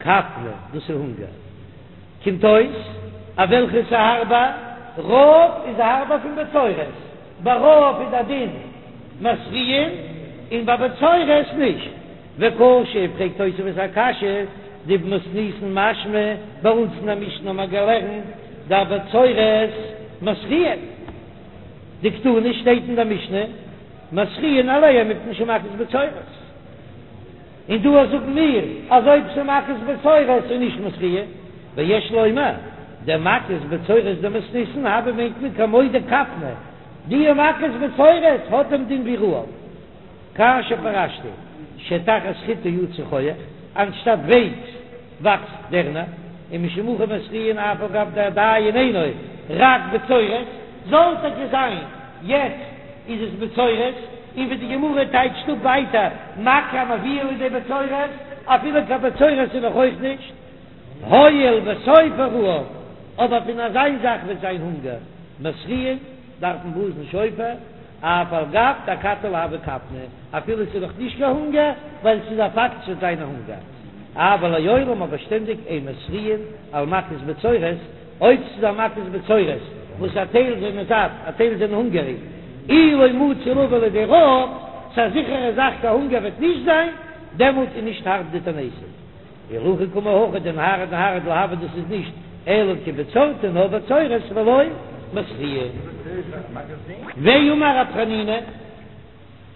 כפנא, דאס איז הונגער. קומט אויס אז וועלכע איז הארבער? רעב איז הארבער פון בצורת, ביי רעב איז א דין מתריעין און ביי בצורת נישט. וקשה, פרעגט תוספות א קשיא, דבמתניתין משמע, ביי אונז אין א משנה האט מען געלערנט דאבצורת מתריעין, דקתני שטייט אין דער משנה מתריעין עליה מפני שמכת בצורת. און דא זאגן מיר אז אויב ס'איז מכת בצורת איז נישט מתריעין, ויש לומר דמכת בצורת דמתניתין הוי מיינט מען כמו דכפנא, די מכת בצורת האט דעם דין ווי רעב, כאשר פירשתי שתחת חיטה יצא חוח, אנשטאט ווייץ וואקסט דערנער, ומשום הכי מתריעין אף על גב דעדיין אינו רק בצורת, זאל טאקע זיין יעצט איז עס בצורת, און ווי די גמרא טייטשט אפ ווייטער מכה המביאה לידי בצורת, אפילו קיין בצורת איז נאך אויך נישט, הואיל וסופו רעב, אבער פון אזיין זאך וועט זיין הונגער, מתריעין, דארף מען בלאזן שופר, אף על גב דאכתי לא הוי כפנא, אפילו ס'איז נאך נישט קיין הונגער, ווייל ס'איז א פאקט ס'וועט זיין א הונגער. אבל לעולם אבער שטענדיג אין מתריעין על מכת בצורת, אויב ס'איז א מכת בצורת וואס א טייל זענען זאט א טייל זענען הונגעריג, אי לא מצי לבא לידי רעב, ס'איז א זיכערע זאך קיין הונגער וועט נישט זיין, דעמאלט איז נישט הארב די תעניתים. ולהכי קאמר הכא דנהרא אנהרא דלא הוי דאס איז נישט אלא כבצורתא נאר בצורת ולא מתריעין. ואמר רב חנינא,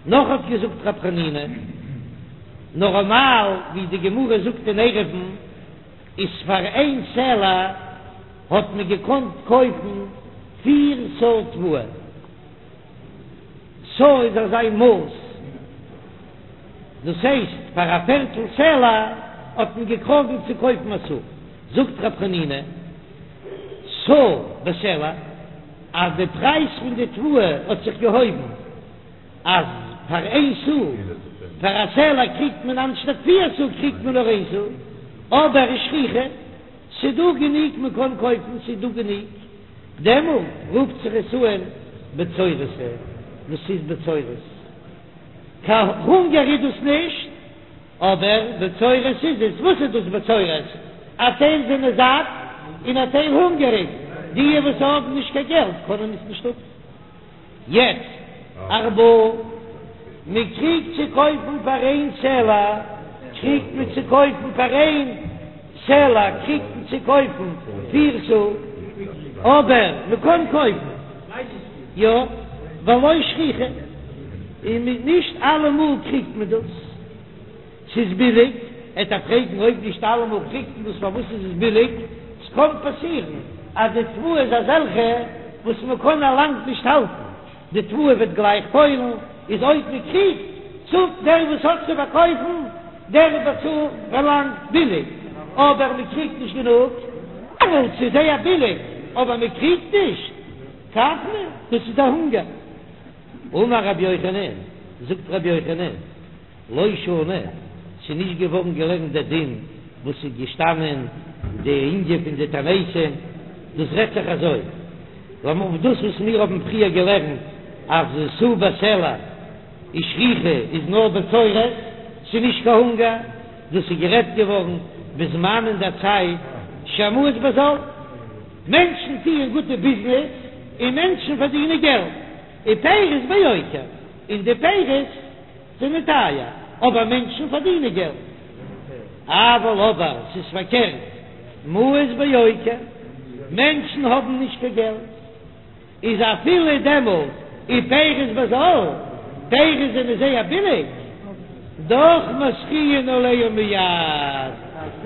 נאך האט געזאגט רב חנינא, נארמאל ווי די גמרא זאגט אין עירובין איז פאר איין סלע האט מען געקאנט קויפן פיר סאה תבואה. סאה איז אזא מאס, דאס הייסט פאר א פערטל סלע האט מען געקראגן צו קויפן א סאה, זאגט רב חנינא, סאה בסלע, אז די פרייז פון די תבואה האט זיך געהויבן, אז פאר איין סאה, פאר א סלע קריגט מען אנשטאט פיר סאה קריגט מען נאר איין סאה, אבער ושכיחא, ס'דא גענוג מען קען קויפן, ס'איז דא גענוג. דעמאלט רופט זיך עס אן בצורתא, דאס איז בצורת. קיין הונגער איז דאס נישט, אבער בצורת איז עס. וואס איז דאס בצורת? א טייל זענען זאט און א טייל הונגעריג, די וואס האבן נישט קיין געלט קענען עס נישט האבן. יעצט ארבעה, מען קריגט צו קויפן פאר איין סלע, קריגט מען צו קויפן פאר איין סלע קריגט מען צו קויפן פיר סאה, אבער מען קען קויפן יא, ולא שכיחא, און נישט אלעמאל קריגט מען דאס. ס'איז ביליג, עט ער פרעגן אויב נישט אלעמאל קריגט מען דאס פארוואס איז עס ביליג, ס'קען פאסירן אז די תבואה איז אזעלכע וואס מ'קען א לאנג נישט האלטן, די תבואה וועט גלייך פוילן, איז אויב מ'קריגט צאלט דער וואס האט צו פארקויפן, דער באצאלט פארלאנגט ביליג, אבער מ'קריגט נישט גענוג. דעמאלט ס'איז זייער ביליג אבער מ'קריגט נישט, כפנא, דאס איז דער הונגער. אמר רבי יוחנן, זאגט רבי יוחנן, לא שנו, ס'איז נישט געווארן געלערנט דער דין וואס איז געשטאנען די ענין פון די תעניתים, דאס רעדט זיך אזוי, לאמיר דאס וואס מיר האבן פריער געלערנט אז סאה בסלע ושכיחא איז נאר בצורת, ס'איז נישט קיין הונגער, דאס איז גערעדט געווארן בזמן אין דער צייט שהמעות בזול, מענטשן טוען גוטע ביזנעס און מענטשן פארדינען געלט, ופירות ביוקר, און די פירות. זענען טייער, אבער מענטשן פארדינען געלט. אבל אבער ס'איז פארקערט, מעות ביוקר, מענטשן האבן נישט קיין געלט, איז אפילו דעמאלט ופירות בזול, פירות זענען זייער ביליג, דאך מתריעין עליה מיד,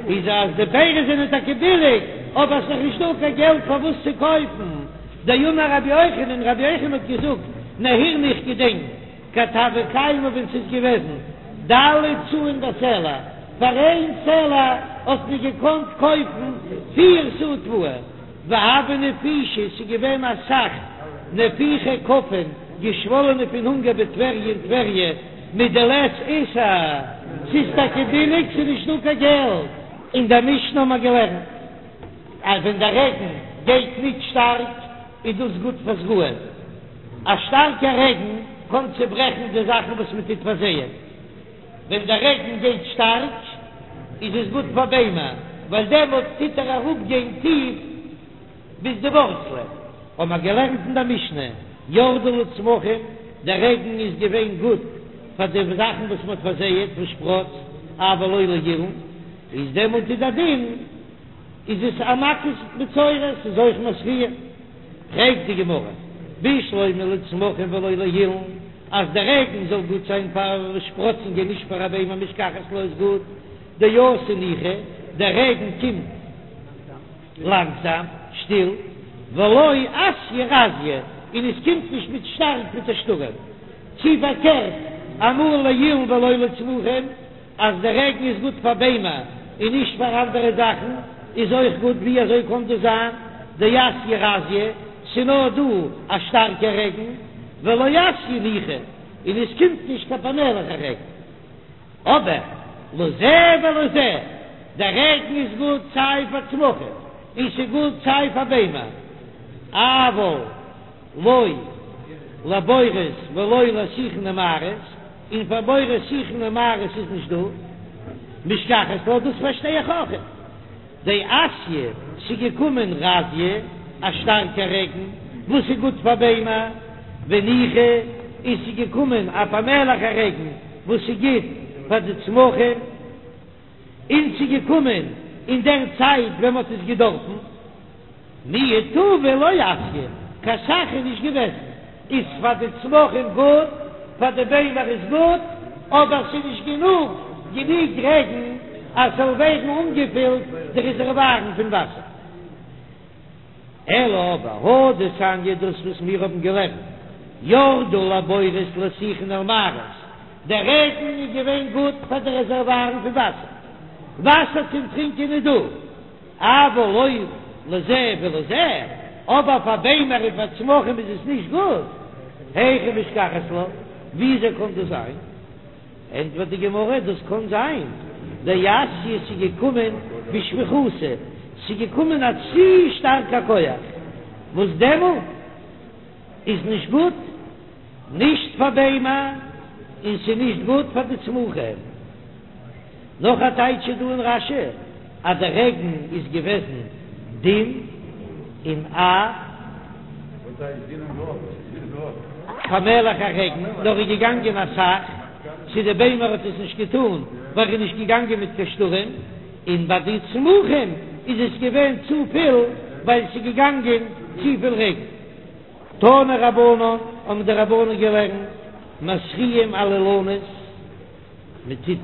איז אז די פירות זענען טאקע ביליג, אבער ס'איז נאך נישטא קיין געלט פאר וואס צו קויפן. דאמר רבי יוחנן, רבי יוחנן האט געזאגט, נהירנא איך געדענק. כד הוה קיימא ווען ס'איז געוועזן ד' סאין בסלע, פאר איין סלע האט מען געקאנט קויפן פיר סאה תבואה. והוו נפישי, ס'איז געווען אסאך נפיחי כפן, געשוואלענע פון הונגער בטבריה אין טבריה, מדלית איסר, ס'איז טאקע ביליג, ס'איז נישט דא קיין געלט. אין דער משנה האבן מיר געלערנט אז ווען דער רעגן גייט ניט שטארק איז דאס גוט פאר זרעים, א שטארקע רעגן קען צעברעכן די זאכן וואס מען טוט פארזייען. ווען דער רעגן גייט שטארק איז עס גוט פאר ביימער, ווייל דעמאלט טוט ער אראפגיין טיף ביז די ווארצלען. האבן מיר געלערנט אין דער משנה, ירדו לצמחים, דער רעגן איז געווען גוט פאר די זאכן וואס מען האט פארזייעט וואס שפראצט, אבל לא לאילן, איז דעמאלט איז דער דין איז עס א מכת מצורע, ס'איז אויך מתריע. פרעגט די גמרא, בשלמא לצמחים ולא לאילן, אז דער רעגן זאל גוט זיין פאר שפראצונגען נישט פאר א ביימער משכחת לה איז גוט, דאתי ניחא, דער רעגן קומט לאנגזאם, שטיל, ולא אתיא רזיא, און עס קומט נישט מיט שטארק מיט א שטורעם, צי פארקערט אמאל לאילן ולא לצמחים. אז דער רעגן איז גוט פאר ביימער און נישט פאר אנדערע זאכן איז אויך גוט, ווי אזוי קען דאס זיין דאתיא רזיא, ס'נאר דא א שטארקע רעגן, ולא אתיא ניחא, און עס קומט נישט קיין פאמעליכע רעגן. אבער לזה ולזה, דער רעגן איז גוט סיי פאר צמחים און ס'גוט סיי פאר ביימער, אבל לא לבורות ולא לשיחין ומערות, און פאר בורות שיחין און מערות איז נישט דא, משכחת לה, דאס פארשטיי איך אויך. דאתיא, ס'איז געקומען רזיא, א שטארקע רעגן, וואס איז גוט פאר ביימער, וניחא, און ס'איז געקומען א פאמעליכע רעגן, וואס איז גוט פאר די צמחים. און ס'איז געקומען אין דער צייט ווען מ'האט עס געדארפן, מיהו טובא לא אתיא, קיין סך איז נישט געוועזן, איז פאר די צמחים גוט, פאר די ביימער איז גוט, אבער ס'איז נישט גענוג גענוג רעגן אז ס'זאל ווערן אנגעפילט די רעזערווארן פון וואסער. אלא אבער הא דתניא דאס וואס מיר האבן געלערנט, ירדו לבורות לשיחין ולמערות, דער רעגן איז געווען גוט פאר די רעזערווארן פון וואסער, וואסער צום טרינקען איז דא, אבל לא לזה ולזה, אבער פאר ביימער און פאר צמחים איז עס נישט גוט, היכי משכחת לה, וויאזוי קען דאס זיין? ענטפערט די גמרא, דאס קען זיין דאתיא ס'איז געקומען בשפיכותא, ס'איז געקומען א צו שטארקע כח, וואס דעמאלט איז נישט גוט, נישט פאר ביימער און ס'איז נישט גוט פאר די צמחים. נאך א טייטש איז דא אין רש"י אז דער רעגן איז געוועזן דין און א פאמעליכע רעגן, נאר איז געגאנגען אסאך, צו די ביימער האט עס נישט געטאן ווייל ער איז נישט געגאנגען מיט קיין שטורעם, און ביי די צמחים איז עס געווען צופיל ווייל ס'איז געגאנגען צופיל רעגן. תנו רבנן, האבן די רבנן געלערנט, מתריעין על אילנות, מען טוט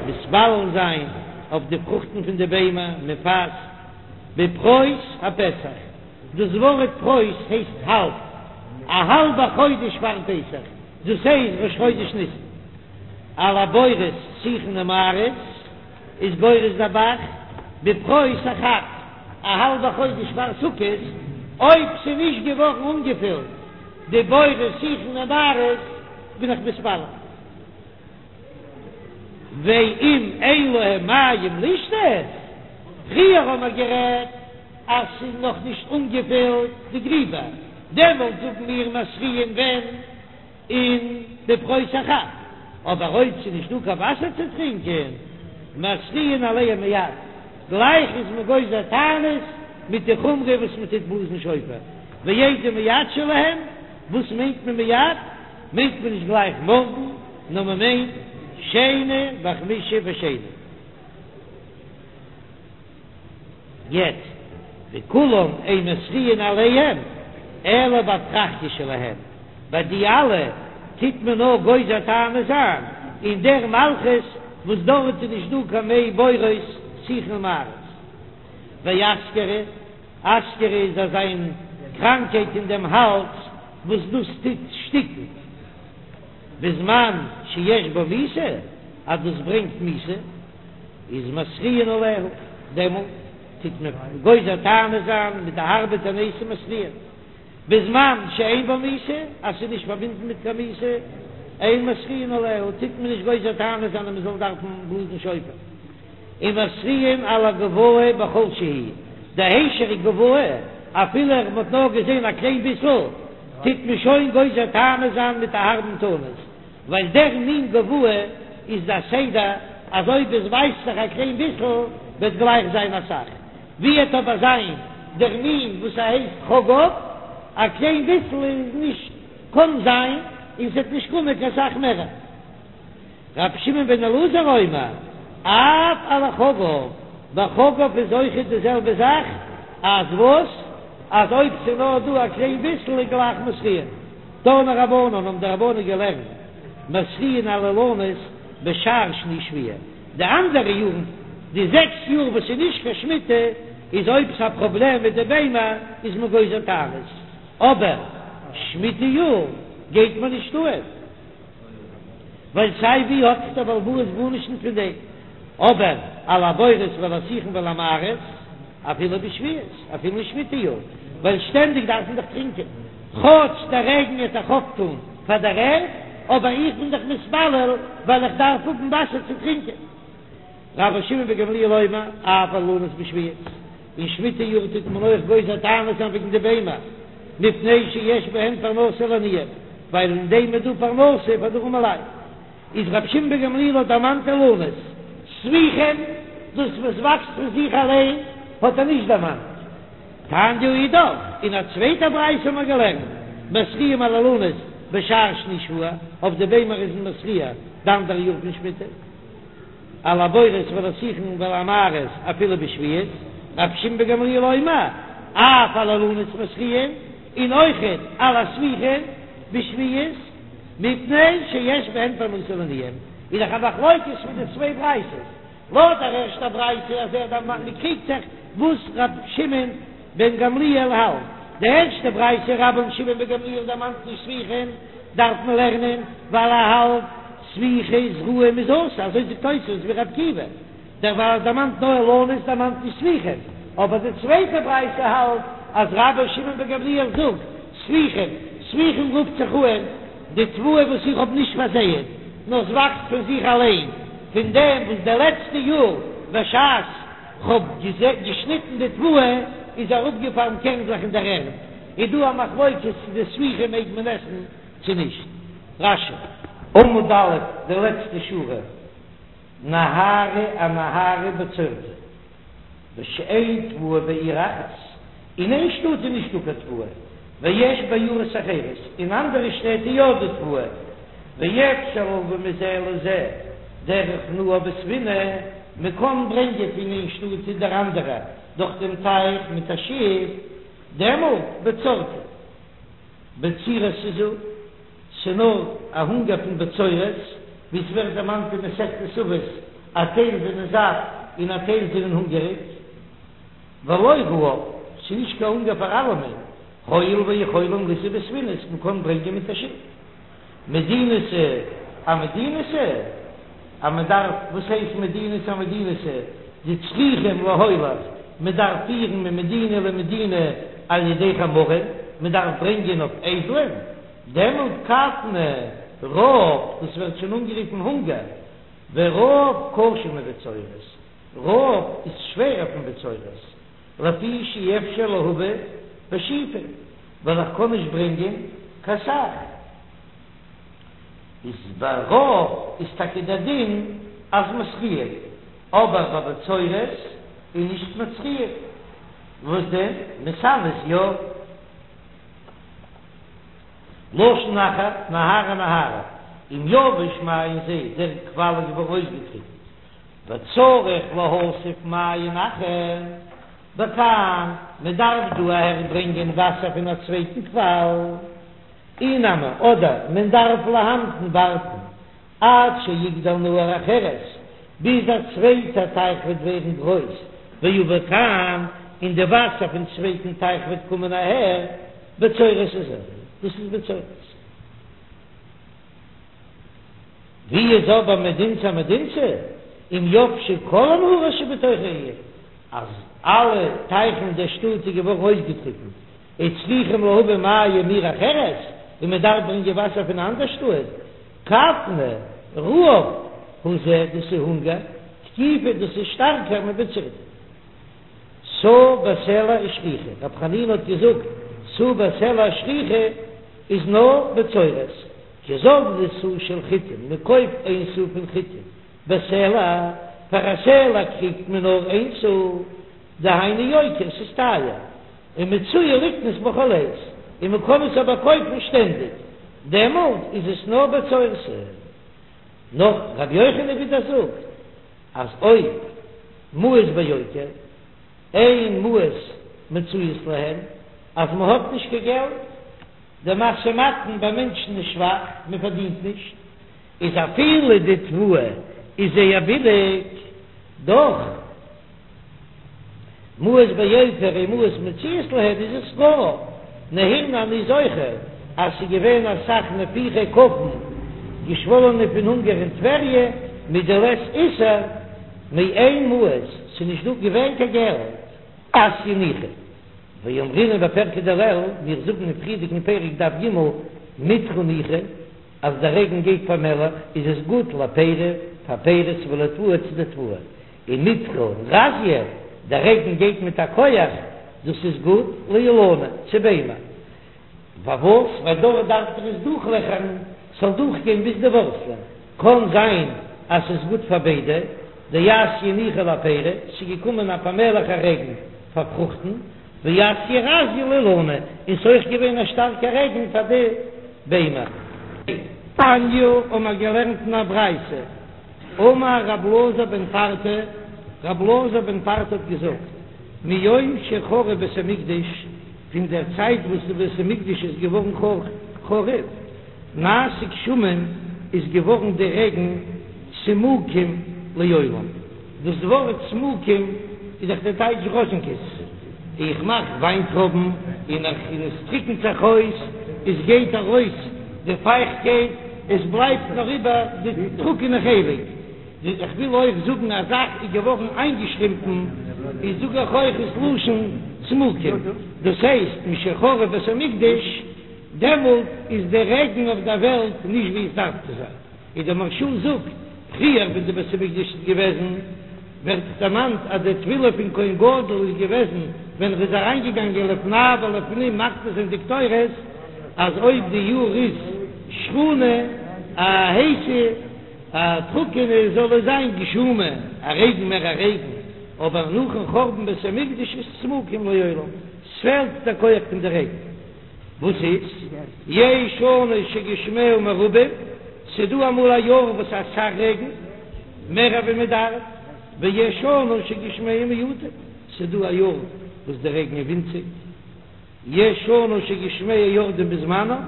מתפלל זיין אויף די פרוכטן פון די ביימער, מען פאסט בפרוס הפסח, דאס ווארט פרוס הייסט האלב, א האלבע חודש פארן פסח, דאס הייסט ראש חודש ניסן, על הבורות שיחין ומערות איז גורס דער ב"ח, בפרוס החג, א האלבע חודש פאר סוכות, אויב ס'איז נישט געווארן אנגעפילט די בורות שיחין ומערות בין איך מתפלל. ואם אין להם מים לשתות, פריער האמער גערעדט אז ס'איז נאך נישט אנגעפילט די גריבער, דעמאלט זאגן מיר מתריעין ווען אין בפרוס החג, אבער אויב ס'איז נישט דא קיין וואסער צו טרינקען, מתריעין עליהם מיד, גלייך איז מען גוזר תענית מיט די חומרא וואס מען טוט בלאזן שופר, ואיזה מיד שלהם, וואס מיינט מען מיד? מיינט מען נישט גלייך מארגן, נאר מען מיינט שני וחמישי ושני. יעצט, וכולם אין מתריעין עליהם אלא באפרכיא שלהם, ביי די אלע טוט מען נאר גוזר תענית זיין אין דער מלכות וואס דארט איז נישט דא קיין מי בורות שיחין ומערות. ואסכרה, אסכרה איז אזא מין קראנקייט אין דעם האלז וואס דאס טוט שטיקן בזמן שיש בו מיתה, אז דאס ברענגט מיתה, איז מתריעין עליה, דעמאלט. טוט מען גוזר תענית זיין מיט א הארבע תענית מתריעין. בזמן שאין בה מיתה, אז ס'איז נישט פארבינדן מיט קיין מיתה, אין מתריעין עליה, טוט מען נישט גוזר תענית זיין אז מ'זאל דארפן בלאזן שופר. ומתריעין על הגובאי בכל שהוא, די היישעריק גובאי, אפילו מ'האט נאר געזען א קליין ביסל, טוט מען שוין גוזר תענית זיין מיט א הארבן תענית, ווייל דער מין גובאי איז דער סדר אז אויב עס ווייזט זיך א קליין ביסל וועט גלייך זיין אסאך, ווי וועט אבער זיין דער מין וואס ס'הייסט חגב, א קליין ביסל איז נישט קען זיין און ס'וועט נישט קומען קיין סאך מער. רבי שמעון בן אלעזר אומר, אף על החגב, ביי חגב איז אויכעט די זעלבע זאך, אז וואס? אז אויב ס'איז נאר דא א קליין ביסל איז גלייך מתריעין. תנו רבנן האבן די רבנן געלערנט, מתריעין על האילנות בשאר שני שביעה, די אנדערע יארן, די זעקס יאר וואס איז נישט קיין שמיטה, איז אויב ס'איז א פראבלעם מיט די ביימער איז מען גוזר תענית, אבער שמיטה יאר גייט מען נישט אן. ווייל סיי ווי האט דער בעל הבית גארנישט נישט פון דעם, אבער על הבורות ועל השיחין ועל המערות אפילו בשביעית, אפילו אין שמיטה יאר, ווייל שטענדיג דארף מען דאך טרינקען, כאטש דער רעגן וועט דאך אויפטון פאר דער ערד, אבער איך בין דאך מתפלל ווייל איך דארף האבן וואסער צו טרינקען. רבן שמעון בן גמליאל אומר, אף על האילנות בשביעית, אין שמיטה יאר טוט מען אויך גוזר תענית זיין וועגן די ביימער, מפני שיש בהן פרנסה לעניים, ווייל אין דעם איז דא פרנסה פאר די ארימע לייט. איז רבי שמעון בן גמליאל האט דערמאנט אילנות, ספיחים, דאס וואס וואקסט פון זיך אליין, האט ער נישט דערמאנט. תניא אידך, אין א צווייטע ברייתא האט מען געלערנט, מתריעים על האילנות בשאר שני שבוע, אויף די ביימער איז מען מתריע די אנדערע יאר פון שמיטה. על הבורות ועל השיחין ועל המערות אפילו בשביעית, רבי שמעון בן גמליאל אומר, אף על האילנות מתריעין, און אויכעט על הספיחין בשביעית, מפני שיש בהן פרנסה לעניים, איז דאך א מחלוקת פון די צוויי ברייתות, לויט דער ערשטער ברייתא אז ער דערמאנט מען קריגט זיך וואס רבי שמעון בן גמליאל האלט, די ערשטע ברייתא רבן שמעון בן גמליאל דערמאנט נישט ספיחין, דארף מען לערנען ווייל ער האלט ספיחי זרעים איז אסור, אזוי זאגט תוספות ווי ר' עקיבא, דערווייל ער דערמאנט נאר אילנות דערמאנט נישט ספיחין, אבער די צווייטע ברייתא האלט אז רבן שמעון בן גמליאל זאגט ספיחין, ספיחין רופט זיך אן די תבואה וואס איך האב נישט פארזייעט נאר ס'וואקסט פון זיך אליין, פון דעם וואס די לעצטע יאר בשעת כ'האב געשניטן די תבואה איז אראפגעפאלן קערנדלעך אין דער ערד, איז דא א מחלוקת צו די ספיחים מעג מען עסן צו נישט. רש"י. עמוד א', די לעצטע שורה, נהרא אנהרא בצורתא, בשאין תבואה בעיר אחת, אין איין שטאט איז נישטא קיין תבואה, ויש בעיירות אחרות, אין אנדערע שטעט איז יא דא תבואה, ואפשר להביא מזה לזה דרך נהר בספינה, מען קען ברענגען פון איין שטאט צו דער אנדערע דורך דעם טייך מיט א שיף, דעמאלט בצורתא. בצירת היא זו, ס'נאר א הונגער פון בצורת, ווי ס'ווערט דערמאנט אין מסכת אבות, א טייל זענען זאט און א טייל זענען הונגעריג. ולא רעב, ס'איז נישט קיין הונגער פאר אלעמען, הואיל ויכולים לישא בספינות, מ'קען ברענגען מיט א שיף. מדינתא אמדינתא, אז מען דארף, וואס הייסט מדינתא אמדינתא, דצריכים להוליך, מען דארף פירן ממדינה למדינה על ידי חמורים, מען דארף ברענגען אויף אייזלען, דעמאלט כוונא רעב, דאס ווערט שוין אנגערופן הונגער, ורעב קשה מבצורת, רעב איז שווערער פון בצורת, לפי שאי אפשר להביא בשיפין, ווייל איך קען נישט ברענגען קיין סך. איז ביי רעב איז טאקע דער דין אז מתריעין, אבער ביי בצורת איז נישט מתריעין. וואס דען? מתענות יא. לשון אחר, נהרא אנהרא, אם יבש מעיין זה, דער קוואל איז געווארן אויסגעטריקנט, וצריך להסב מעיין אחר בכאן, מען דארף דא אהער ברענגען וואסער פון א צווייטן קוואל, אי נמי, אדער מען דארף להמתין ווארטן עד שיגדל נהר אחרת, ביז א צווייטע טייך וועט ווערן גרויס, ויבא כאן, און די וואסער פון צווייטן טייך וועט קומען אהער, בצורת היא זו, דאס איז בצורת. ווי איז אבער מדינתא אמדינתא, אם יבשו כל הנהרות שבתוך העיר? אז אלע טייכן אין דער שטאט איז געווארן אויסגעטריקנט, וצריכים להביא מים מעיר אחרת, און מען דארף ברענגען וואסער פון אן אנדער שטאט, כפנא, רעב, הוא זה, דאס איז הונגער, תקיפא, דאס איז שטארקער מבצורתא. סאה בסלע ושכיחא, רב חנינא האט געזאגט, סאה בסלע ושכיחא איז נאר בצורת, כי זבני סאה של חיטין, מען קויפט איין סאה פון חיטין, בסלע, פאר א סלע קריגט מען נאר איין סאה, דהיינו יוקר, ס'איז טייער, ומצויה לקנות בכל עת, און מען קען עס אבער קויפן שטענדיג, דעמאלט איז עס נאר בצורתא. נאך רבי יוחנן ווידער זאגט אז אויב מעות ביוקר, אין מעות מצויות להם, אז מען האט נישט קיין געלט, דער משא ומתן ביי מענטשן איז שוואך, מען פארדינט נישט, איז אפילו די תבואה איז זייער ביליג, דאך מעות ביוקר אין מעות מצויות להם איז עס רעב, נהירנא אני זוכר אז ס'איז געווען אסאך נפיחי כפן געשוואלענע פון הונגער אין טבריה מדלית איסר מאין מעות ס'איז נישט דא געווען קיין געלט. אתיא ניחא ואמרינן בפירקא דלעיל, מיר זאגן אין פריערדיגן פרק דף ג, מיטרא ניחא, אז דער רעגן גייט פאמעלעך איז עס גוט לפירי פאר פירות ולתבואה צו די תבואה, און מיטרא רזיא, דער רעגן גייט מיט א כח, דאס איז גוט לאילני צו ביימער. פארוואס? ווייל דארט דארף דאך עס דורכלעכערן, ס'זאל דורכגיין ביז די ווארצלען. קען זיין אז ס'איז גוט פאר ביידע, דאתיא ניחא לפירי, ס'איז געקומען א פאמעליכע רעגן פאר פרוכטן, ואתיא רזיא לאילני, און ס'איז אויך געווען א שטארקע רעגן פאר די ביימער. תניא האבן מיר געלערנט אין א ברייתא, אמר רב אלעזר בן פרטא, רב אלעזר בן פרטא האט געזאגט, מיום שחרב בית המקדש, פון דער צייט וואס די בית המקדש איז געווארן חרוב, נעשו גשמים, איז געווארן די רעגן צמוקים לעולם. דאס ווארט צמוקים איז דאך די טייטש ראזשינקעס, איך מאך וויינטרויבן און איך און עס טריקנט זיך אויס, עס גייט ארויס די פייכטקייט, עס בלייבט נאר איבער די טרוקענע חלק. איך וויל אויך זאגן א זאך איז געווארן איינגעשרימפן, איז זאג איך אויך עס לשון צמוקים, דאס הייסט משחרב בית המקדש, דעמאלט איז די רעגן אויף דער וועלט נישט ווי עס דארף צו זיין, און דער מהרש"א זאגט, פריער ווען די בית המקדש איז געוועזן, ווערט דערמאנט אז די תפילה פון כהן גדול איז געוועזן ווען ער איז אריינגעגאנגען לפני ולפנים מקטיר זיין די קטורת, אז אויב די יאר איז שחונה, א הייסע, א טרוקענע, זאל עס זיין גשומה, א רעגן מער א רעגן, אבער נאכן חורבן בית המקדש איז צמוקים לעולם, ס'פעלט דער כח פון די רעגן. וואס איז? יש שנה שגשמיה מרובים, ס'דא אמאל א יאר וואס אסאך רעגן, מער ווי מען דארף, ויש שנה שגשמיה מועטים, ס'דא א יאר וואס די רעגן איז ווינציג, יש שנה שגשמיה יורדים בזמנם,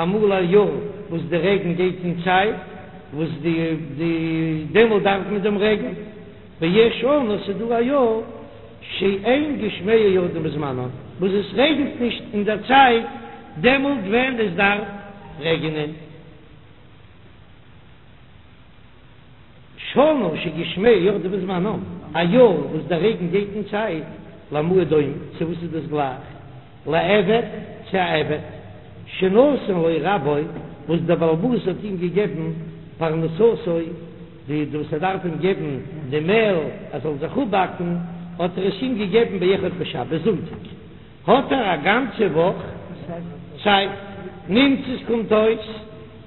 אמאל א יאר וואס די רעגן גייט אין צייט, וואס די די דעמאלט דארף מען דעם רעגן. ויש שנה ס'דא א יאר שאין גשמיה יורדים בזמנם, וואס עס רעגנט נישט אין דער צייט דעמאלט ווען עס דארף רעגענען. שנה שגשמיה יורדים בזמנם, א יאר וואס דער רעגן גייט אין צייט, למה הוא דומה, צו וואס איז דאס גלייך? לעבד, צו א עבד, שנתן לו רבו, וואס דער בעל הבית האט אים געגעבן פרנסתו, די וואס ער דארף אים געבן די מעל ער זאל זיך אפבאקן, האט ער עס אים געגעבן באחד בשבת זונטאג, האט ער א גאנצע וואך צייט, נמצאת קומט אויס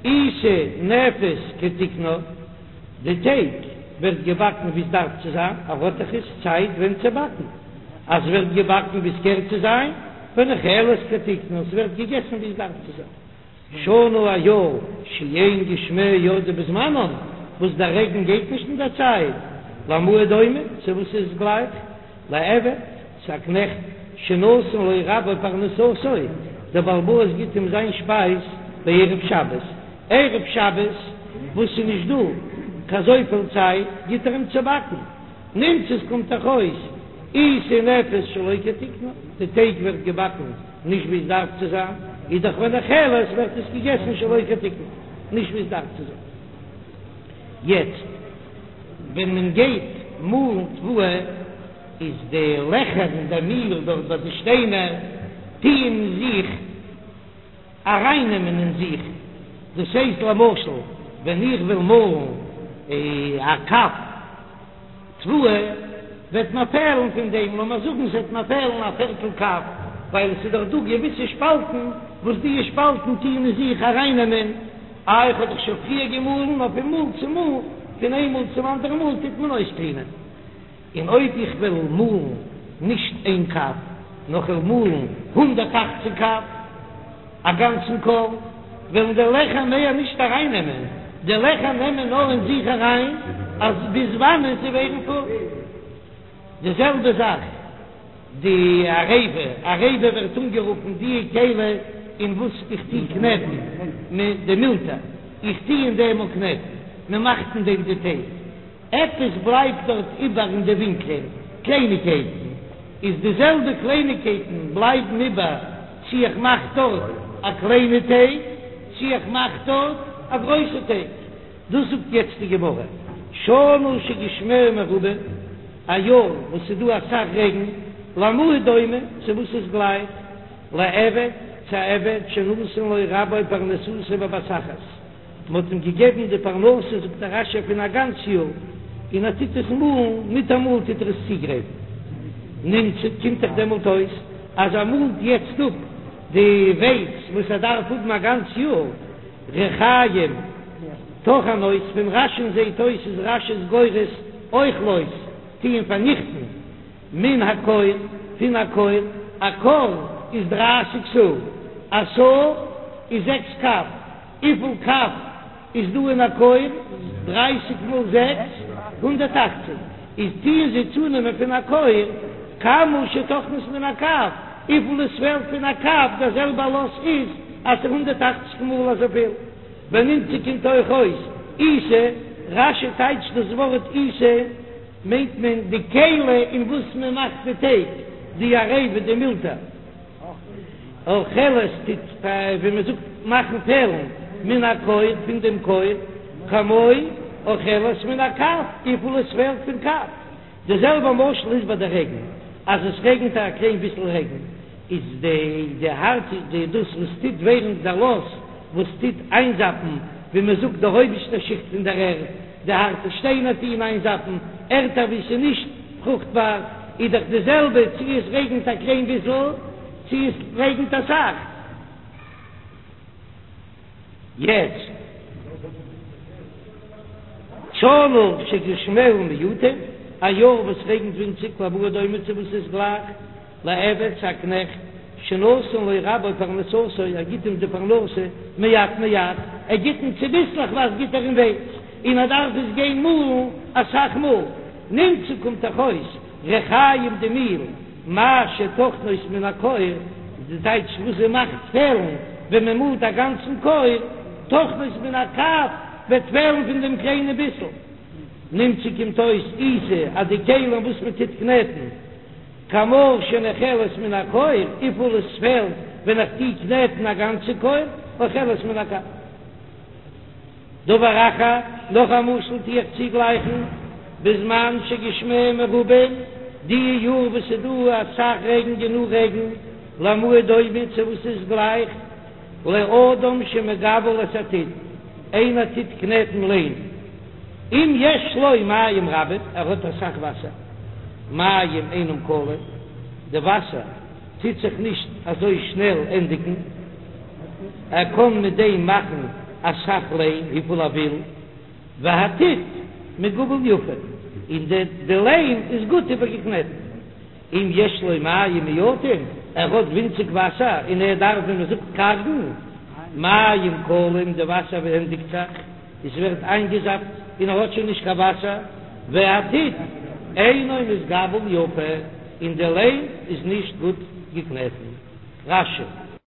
עיסה נאפית כתיקנה, די טייג ווערט געבאקן ווי עס דארף צו זיין, ער האט דאך איז צייט ווען צו באקן, אז ווערט געבאקן ווי עס קער צו זיין, ונאכלת כתיקנה, עס ווערט געגעסן ווי עס דארף צו זיין. שנה א יאר שאין גשמיה יורדים בזמנם, וואס דער רעגן גייט נישט אין דער צייט, למה הוא דומה, צו וואס איז עס גלייך? לעבד, צו א קנעכט, שנתן לו רבו פרנסתו, דער בעל הבית גיט אים זיין שפייז בערב שבת, ערב שבת וואס איז נישט דא קיין אזויפיל צייט, גיט ער אים צו באקן, נמצאת קומט דאך אויס עיסה נאפית שלא כתיקנה, די טייג ווערט געבאקן נישט ווי עס דארף צו זיין, איז דאך ונאכלת ווערט עס געגעסן שלא כתיקנה, נישט ווי עס דארף צו זיין. יעצט ווען מען גייט מאלן תבואה. איז די לעכער אין די מיל דארט ביי די שטיינער טוען זיך ארייננעמען אין זיך, דאס הייסט למשל ווען איך וויל מאלן א קב תבואה וועט מיר פעלן פון דעם, לאמיר זאגן ס'וועט מיר פעלן א פערטל קב, ווייל עס איז דאך דא געוויסע שפאלטן וואס די שפאלטן טוען אין זיך ארייננעמען, איי איך האב דאך שוין פריער געמאלן, נאר פון מאל צו מאל, פון איין מאל צום אנדערן מאל טוט מען אויסקלינען. און אויב איך וועל מאלן נישט איין קב, נאר כ'וועל מאלן 180 קב, א גאנצן כור, וועלן די לעכער מער נישט ארייננעמען, די לעכער נעמען נאר אין זיך אריין אז ביז וואנען זיי ווערן פול. די זעלבע זאך די עריבה, עריבה ווערט אנגערופן די כלי אין וואס איך טו קנעטן, די מולטער, איך טו אין דעם קנעטן, מען מאכט אין דעם די טייג. עפעס בלייבט דארט איבער אין די ווינקלען, קלייניגקייטן, איז די זעלבע קלייניגקייטן בלייבן איבער צי איך מאך דארט א קליינע טייג צי איך מאך דארט א גרויסע טייג. דאס זאגט יעצט די גמרא, שנה שגשמיה מרובים, א יאר וואס ס'איז דא אסאך רעגן, למה הוא דומה, צו וואס איז גלייך, לעבד, צו א עבד שנתן לו רבו פרנסתו בבת אחת. מען האט אים געגעבן די פרנסה, זאגט דער רש"י, פון א גאנץ יאר, און ער טוט עס מאלן, מיטאמאל טוט ער עס צוגרייטן. נמצא, קומט דאך דעמאלט אויס אז ער מאלט יעצט אפ די ווייץ וואס ער דארף האבן א גאנץ יאר. ריחיים טוחנות, פון רש"י'ן זעט אויס איז רש"י גורס אוכלות, טוען פארניכטן, מן הכור, פון א כור, א כור איז דרייסיג סאה, א סאה איז זעקס קב. וויפיל קב איז דא אין א כור? דרייסיג מאל זעקס, 180. איז טוען זיי צונעמען פון א כור כמה שטוחנות מן הקב, וויפיל עס פעלט פון א קב, דער זעלבער לאס איז אז ס'איז 180 מאל אזויפיל. ונמצא קומט אויך אויס עיסה, רש"י טייטשט דאס ווארט עיסה מיינט מען די כלי אין וואס מען מאכט די טייג, די עריבה, די מולטער. אוכלת טוט ווי מען זאגט מאכן פעלן מן הכור פון דעם כור, כמו אוכלת מן הקב וויפיל עס פעלט פון קב. די זעלבע משל איז ביי די רעגן, אז עס רעגנט א קליין ביסל רעגן איז די די הארט די דאס וואס טוט ווערן דער לאס וואס טוט איינזאפן ווי מען זאגט די אויבערשטע שיכט פון דער ערד, די הארטע שטיינער טוען איינזאפן ערטער ווי ס'איז נישט פרוכטבאר, איז דאך די זעלבע צי עס רעגנט א קליין ביסל צי עס רעגנט אסאך. יעצט שנה שגשמיה מועטין, א יאר וואס רעגנט ווינציג, למה הוא דומה צו וואס איז גלייך לעבד צו א קנעכט, שנתן לו רבו פרנסתו, ער גיט אים די פרנסה מעט מעט, ער גיט אים צוביסלעכווייז גיט ער אים ווייץ, און ער דארף עס גיין מאלן אסאך מאל, נמצא קומט דאך אויס ריחיים די מיל, מה שטוחנות מן הכור, די טייטש וואס זי מאכט פעלן ווען מען מאלט א גאנצן כור, טוחנות מן הקב וועט פעלן פון דעם קליינע ביסל. נמצא קומט אויס עיסה אז די כלים וואס מען טוט קנעטן, כמה שנאכלת מן הכור, וויפיל עס פעלט ווען איך טו קנעטן א גאנצע כור, אוכלת מן הקב. דבר אחר, נאך א משל טו איך צוגלייכן, בזמן שגשמיה מרובים, די יאר וואס ס'איז דא אסאך רעגן גענוג רעגן, למה הוא דומה צו וואס איז גלייך, לאדם שמגבל את הטיט, איינער טוט קנעטן ליים, אם יש לו מים רבים, ער האט אסאך וואסער, מים אינם כלים, די וואסער טוט זיך נישט אזוי שנעל ענדיגן, ער קען מיט דעם מאכן אסאך ליים וויפיל ער וויל, והטיט מגובל יפה, און די ליים איז גוט איבערגעקנעטן. אם יש לו מים מועטים, ער האט ווינציג וואסער און ער דארף ווי מען זאגט קארגן, מים כלים, די וואסער ענדיגט זיך, עס ווערט איינגעזאפט און ער האט שוין נישט קיין וואסער, והטיט אינו מתגבל יפה, און די ליים איז נישט גוט געקנעטן. רש"י.